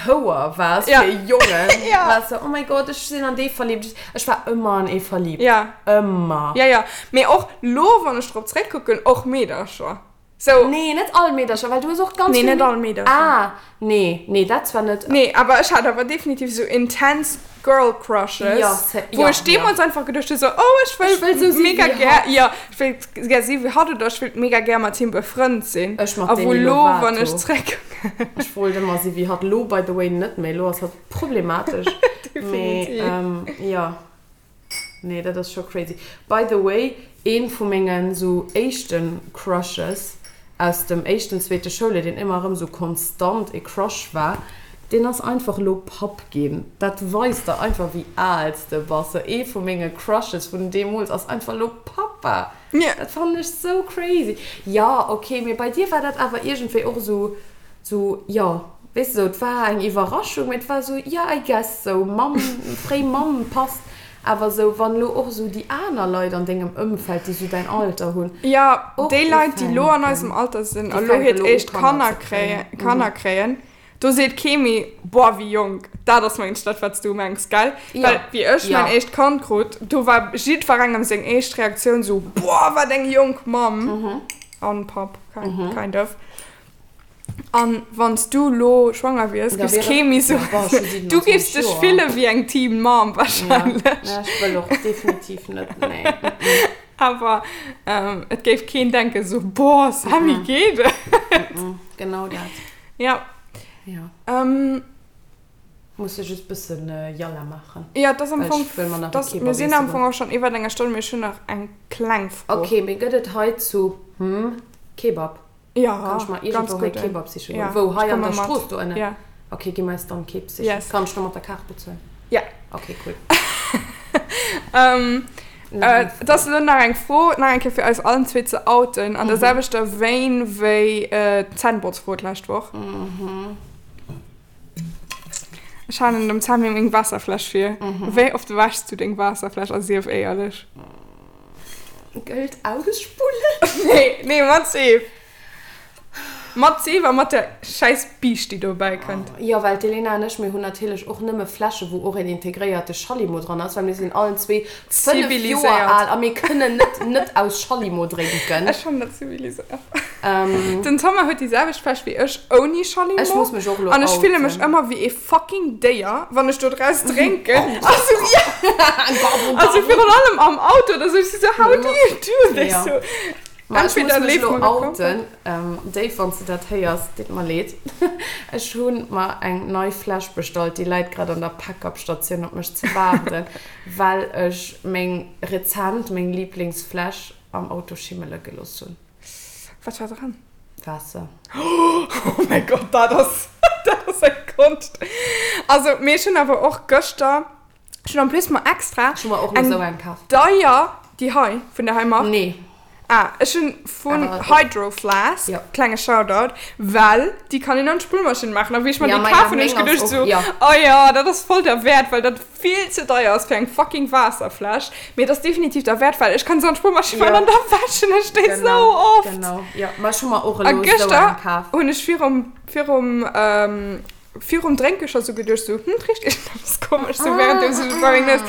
Houer waars Ja. fir Jongen. Ja. Waars sou, oh mäi Gott, ech sinn an dee verliebt. Ech war ëmmer an ee verliebt. Ja. Ëmmer. Ja, ja. Mee och lo, wann ech drop zréckkucken, och Meedercher. Sou. Nee, net all Meedercher, well du hues och ganz Nee, vill net all Meedercher. Ah, nee, nee, dat zwar net. Nee, awer ech hat awer definitiv sou intens Girl Crushes, Ja, se, wou ja, ech deemools ja. einfach geduecht hu sou, oh, ech wëll Ech wëll sou si mega wéi gär, hatt. ja, ech wéilt gär si wéi hatt oder ech wéilt mega gär mat him befrënnt sinn. Ech mat A wou Demi lo, wann ech Lovato. zréckkucken. Ech wollt ëmmer si wéi hatt. Lo by the way net méi, lo ass hatt problematesch. Mee, Definitiv. ähm, ja. Nee, dat ass scho crazy. By the way, een vu mengen sou éischten Crushes aus dem éischten, zweete Schouljoer, deen ëmmer erëm sou konstant e Crush war, deen ass einfach elo Papp ginn. Dat weist der einfach wéi al s de bass. Sou ee vu menge Crushes vun deemools ass einfach elo Pappa. Dat fannen ech sou crazy. Jo, ok, mee bei dir war dat awer iergendwéi och sou, sou, jo, weess de, sou, et war eng Iwwerraschung, mee et war sou, jo, I guess, sou Mamm, fréi Mamm passt. Awer sou, wann elo och sou déi aner Leit an dengem Ëmfeld, déi sou däin Alter hunn, Jo, och déi Leit, déi elo an eisem ufänken, Alter sinn déi a lo fänke hiert elo u éischt Kanner Kanner ze kréien. kréien, Kanner kréien, do seet kee méi, Boah, wéi jonk. Dat ass mengen ech dat, wat s du mengs, gell? Jo, Well wéi ech jo. mäin éischt Kand krut, do war jiddwerengem seng éischt Reaktioun sou, Boah, wat eng jonk Mamm an Papp, kind of. An wann s du lo schwanger wiers, Da giffs wier kee méi ja, soen, boah, ech hu du giffs 27 dech Joer. fille wéi eng Teen Mom Ja, wahrscheinlech. ja, ech wëll och definitiv net, nee. Awer et géif keen denken sou, Boah, Sammy, geet et? Genau dat. Ja. Ja. Ähm. Muss ech just bëssen Yalla maachen. Ja, et ass am Well Fong, ech wëll mer nach et e ass, Kebab mir sinn am iesse Fong goen. och schonn iwwert enger Stonn, mee ech hunn nach eng kleng Fro. Ok, mee gëtt et hei zu hm Kebab? Ja, Kann ech mer ganz iergendwou hei gudden. Kebab siche goen? Ja, Wou? ech Hei an komme der mat. Strooss do ënnen? Ja. Ok, gi mer eis dann Kebab sichen. Yes. Kann ech da mat der Kaart bezuelen? Ja. Ok, cool. Ähm, Nach äh, eng et ass elo nach eng Fro, nach eng Kéier fir eis allen zwee ze outen, an der selwechter Vein wéi d'Zännbotzfro d'lescht Woch. Ech halen dem Sammy meng Waasserfläsch vir. Wéi oft wäschs du deng Waasserfläsch a sief éierlech? Gëllt ausspullen? Nee, nee, mat Seef. Mat Seef a mat der schäiss Biischt, déi dobäi kënnt. Jo, well d'Elena an ech, mir hunn natierlech och nëmme Fläsche wou och een integréierte Schallimo dran ass, well mir sinn allen zwee 5 Joer al a mir kënnen net net aus Schallimo drénken. Ech fannen dat ziviliséiert. Den Thomas huet déi selwecht Fläsch wéi ech ouni Schallimo. Ech muss mech och elo An ech fille mech outen. ëmmer wéi ee fucking Déier, wann ech do draus drénken. Also, also virun allem am Auto oder sou. Ech si sou, how do you do this? Jo. Sou. Ma ech muss Entweder mech leeft elo mer e komplett. outen, Dave, wann s de dat héiers, deet mer leed. Ech hu mer eng nei Fläsch bestallt, déi läit grad an der Pack-up-Statioun op mech ze waarden, well ech meng rezent, meng Liblingsfläsch am Auto schimmele gelooss hunn. Wat war dran? Waasser. Oh mäi Gott, dat ass, dat ass eng Konscht. Also, mee ech hunn awer och gëschter, ech hunn en plus mer extra Ech hu mer och elo eng esou eng kaf. deier, déi hei, vun der hei Mark. Nee. Ah, ech hunn vun Awer och. Hydro Flask, Jo. klenge Shoutout, well déi kann een an d'Spullmaschinn maachen. A wéi ech mer Ja, déi maja, kaf hunn, hunn ech meng ass geduecht och, esou, jo. oh jo, dat ass voll derwäert, well dat vill ze deier ass fir eng fucking Waasserfläsch, mee et ass definitiv derwäert, well ech kann se an d'Spullmaschinn maachen an da wäschen ech déi Genau, sou oft. genau. Jo, ma ech hu mer och A elo esou gëschter eng kaf. hunn ech virum, virum, virum Drénke scho sou geduecht, sou, hm, et richt iergendeppes komesch, sou währenddeems ech bei meng Nues,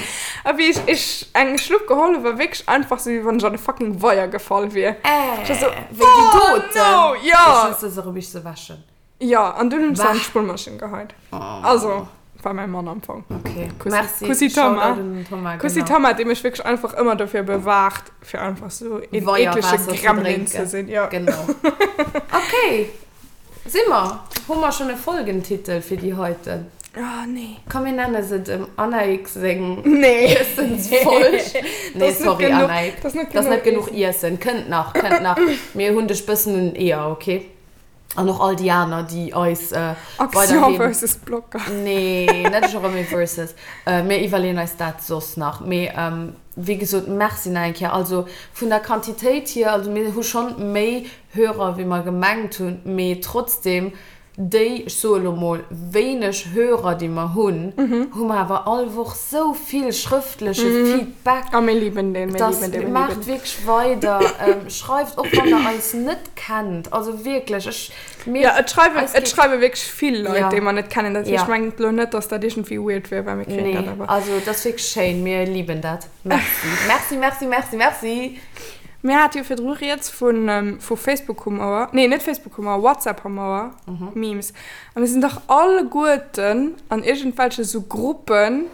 a wéi ech, ech eng Schlupp geholl hu war wierklech einfach sou, wéi wann ech an e fucking Weier gefall wier. Äh, Ech war sou, wéi déi oh doten! no, jo! Ech hues se erëm, wéi ech se wäschen. Jo, an dunn hunn ech se an Bah. d'Spullmaschinn geheit. Also, war mäi Mann am Fong. Okay. Kussi, Merci. Kussi Shoutout Thomas. un den Thomas, Kussi genau. Thomas, dee mech wierklech einfach ëmmer dofir bewaacht, fir einfach sou een eeklege Weierwaasser ze Gremlin ze drénken. sinn. Jo. Genau. Okay. Si mer? Hu mer schonn e Folgentitel fir déi heiten? Oh, nee. Komm, mir nenne se dem Annaïg seng Nee. Iessensfolg. Nee, Das ist net sorry, genuch, Annaïg. das ist net Das ass net genuch genuch Iessen. Kënnt nach, kënnt nach. Mir hunn dech bëssen un den Eeër, okay? An och all déi aner, déi eis Action weiderhin. versus Blocker. Nee, net Jeremy versus. Mir iwwerleeën eis dat soss nach. Mee wéi gesot, Merci nach eng Kéier. Also vun der Quantitéit hier, also mir hu schonn méi Hörer wéi mer gemengt hunn, mee trotzdem déi, ech soe lo mol, wéineg Hörer déi mer hunn, hu mer awer all Woch sou vill schrëftleche Feedback. A mir liben deen, mir Dass liben deen, mir liben maacht deen. wierklech weider, schreift och wann der eis net kennt, also wierklech, ech, mir, Ja, et schreiwen, eis et geet, schreiwe wierklech vill Leit, ja, déi mer net kennen. Dat heescht, ja, mengt elo net, dass dat iergendwéi weird wier, well mir kréien dat nee, awer. also et ass wierklech schéin, mir liben dat. Merci, merci, merci, merci, merci. Mir hate jo virdru rieds vu, vu Facebook-Humouer, nee, net Facebook-Humouer, WhatsApp-Humouer, Memes. A mir sinn dach alleguerten an iergendwelche sou Gruppen,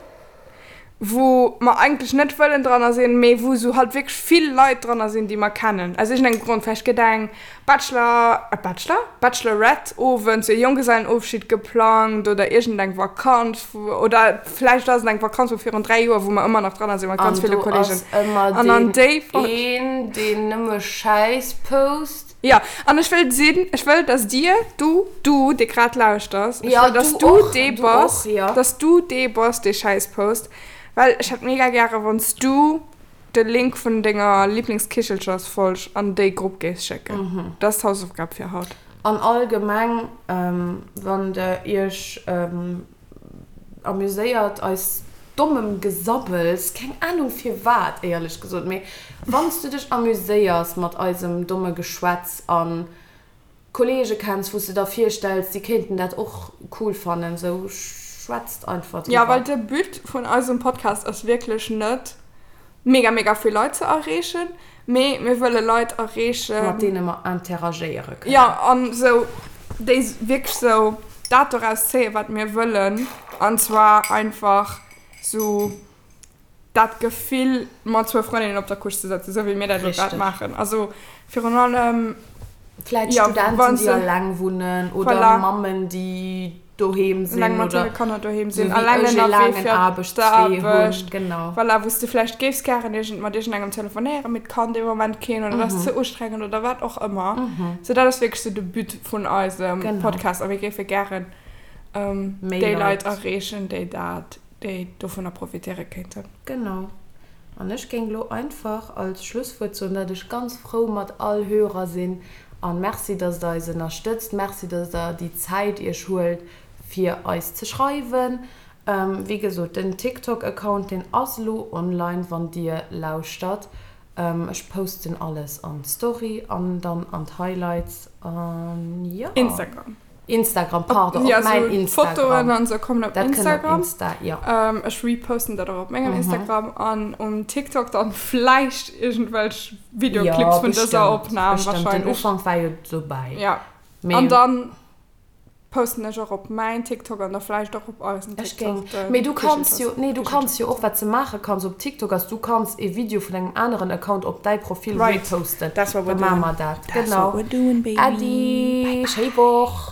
wou mer eigentlech net wëllen dranner sinn, mee wou sou halt wierklech vill Leit dranner sinn, déi mer kennen, aus iergendengem Grond. Vläicht gëtt eng Bachelor, Bachelor? Bachelorette-Owend, sou e Jonggesellenofschied geplangt oder iergendeng Vakanz, oder vläicht ass et eng Vakanz vu virun 3 Joer, wou mer ëmmer nach dranner sinn mat ganz An ville do Kollegen. ass ëmmer An an deen déi Folg. een, deen nëmme Schäiss post. Jo, an ech wëll sinn, ech wëll, dass dir, du, du, dee grad lauschters, ech Ja, wëll, dass du du och, dee du bass, och, ja. dass du dee bass, dee Schäiss post, well ech hätt mega gäre wann s du de Link vun denger Lieblingskichelchersfolg an déi Grupp géifs schécken. Dat ass d'Hausaufgab fir haut. An allgemeng, wann der iech amuséiert eis dommem Gesabbels, keng Ahnung firwat éierlech gesot, mee wann s du dech amuséiers mat eisem domme Geschwätz an Kollege kenns wou s de der virstells déi kéinten dat och cool fannen, sou schwätzt einfach Jo, well driwwer. de But vun eisem Podcast ass wierklech net mega mega vill Leit ze erreechen, mee mir wëlle Leit erreechen. Mat deene mer interagéiere kënnen. Jo, an sou déi wierklech sou dat doraus zéien, wat mir wëllen, an zwar einfach sou dat Gefill mat zwou Frëndinnen op der Couche ze sëtzen, sou wéi mir dat elo grad Richteg. maachen. Also virun allem, Vläit jo, Studenten, wann déi se, alleng wunnen oder voilà. Mammen, déi doheem Eleng sinn mat oder hire Kanner doheem sou sinn, wéi eleng ech e ënnerwee laangen fir Aarbechtswee hunn, d'Aarbecht, genau. voilà, wou s de vläicht géifs gären iergend mat iergendengem telefonéieren, mee et kann dee Moment keen oder et ass ze ustrengend oder wat och ëmmer. Sou dat ass wierklech sou de But vun eisem Genau. Podcast a mir géife gären Méi déi Leit Leit. erreechen, déi dat, déi dovunner profitéiere kéinten. Genau. An ech géing lo einfach als Schlusswuert soen, dat ech ganz frou mat all Hörer sinn an Merci, dass der eis ënnerstëtzt. Merci, dass der déi Zäit iech huelt fir eis ze schreiwen. Wéi gesot, den TikTok Account, deen ass lo online, wann dir lauschtert. Ech posten alles an d'Story an dann an d'Highlights an jo. Instagram. Instagram, pardon, op Ja, mäin sou Instagram. Fotoen an sou kommen op Dat kënnt op Instagram. Insta, jo. Ähm, ech reposten dat och op mengem Instagram an um TikTok dann vläicht iergendwelch Jo, Videoclips vun dëser bestëmmt, Opnam bestëmmt. Den wahrscheinlech. Ufank war jo dobäi. Ja. Mee An dann. Posten ech och op mäin TikTok an da vläicht och op eisen Ech géing. TikTok. Mee du kanns jo, nee du kanns jo och, wat s de maache kanns op TikTok ass, du kanns e Video vun engem aneren Account op däi Profil Right. reposten. That's what Da we're maache doing. mer dat. That's Genau. what we're doing, baby. Äddi, Bye bye. schéi Woch.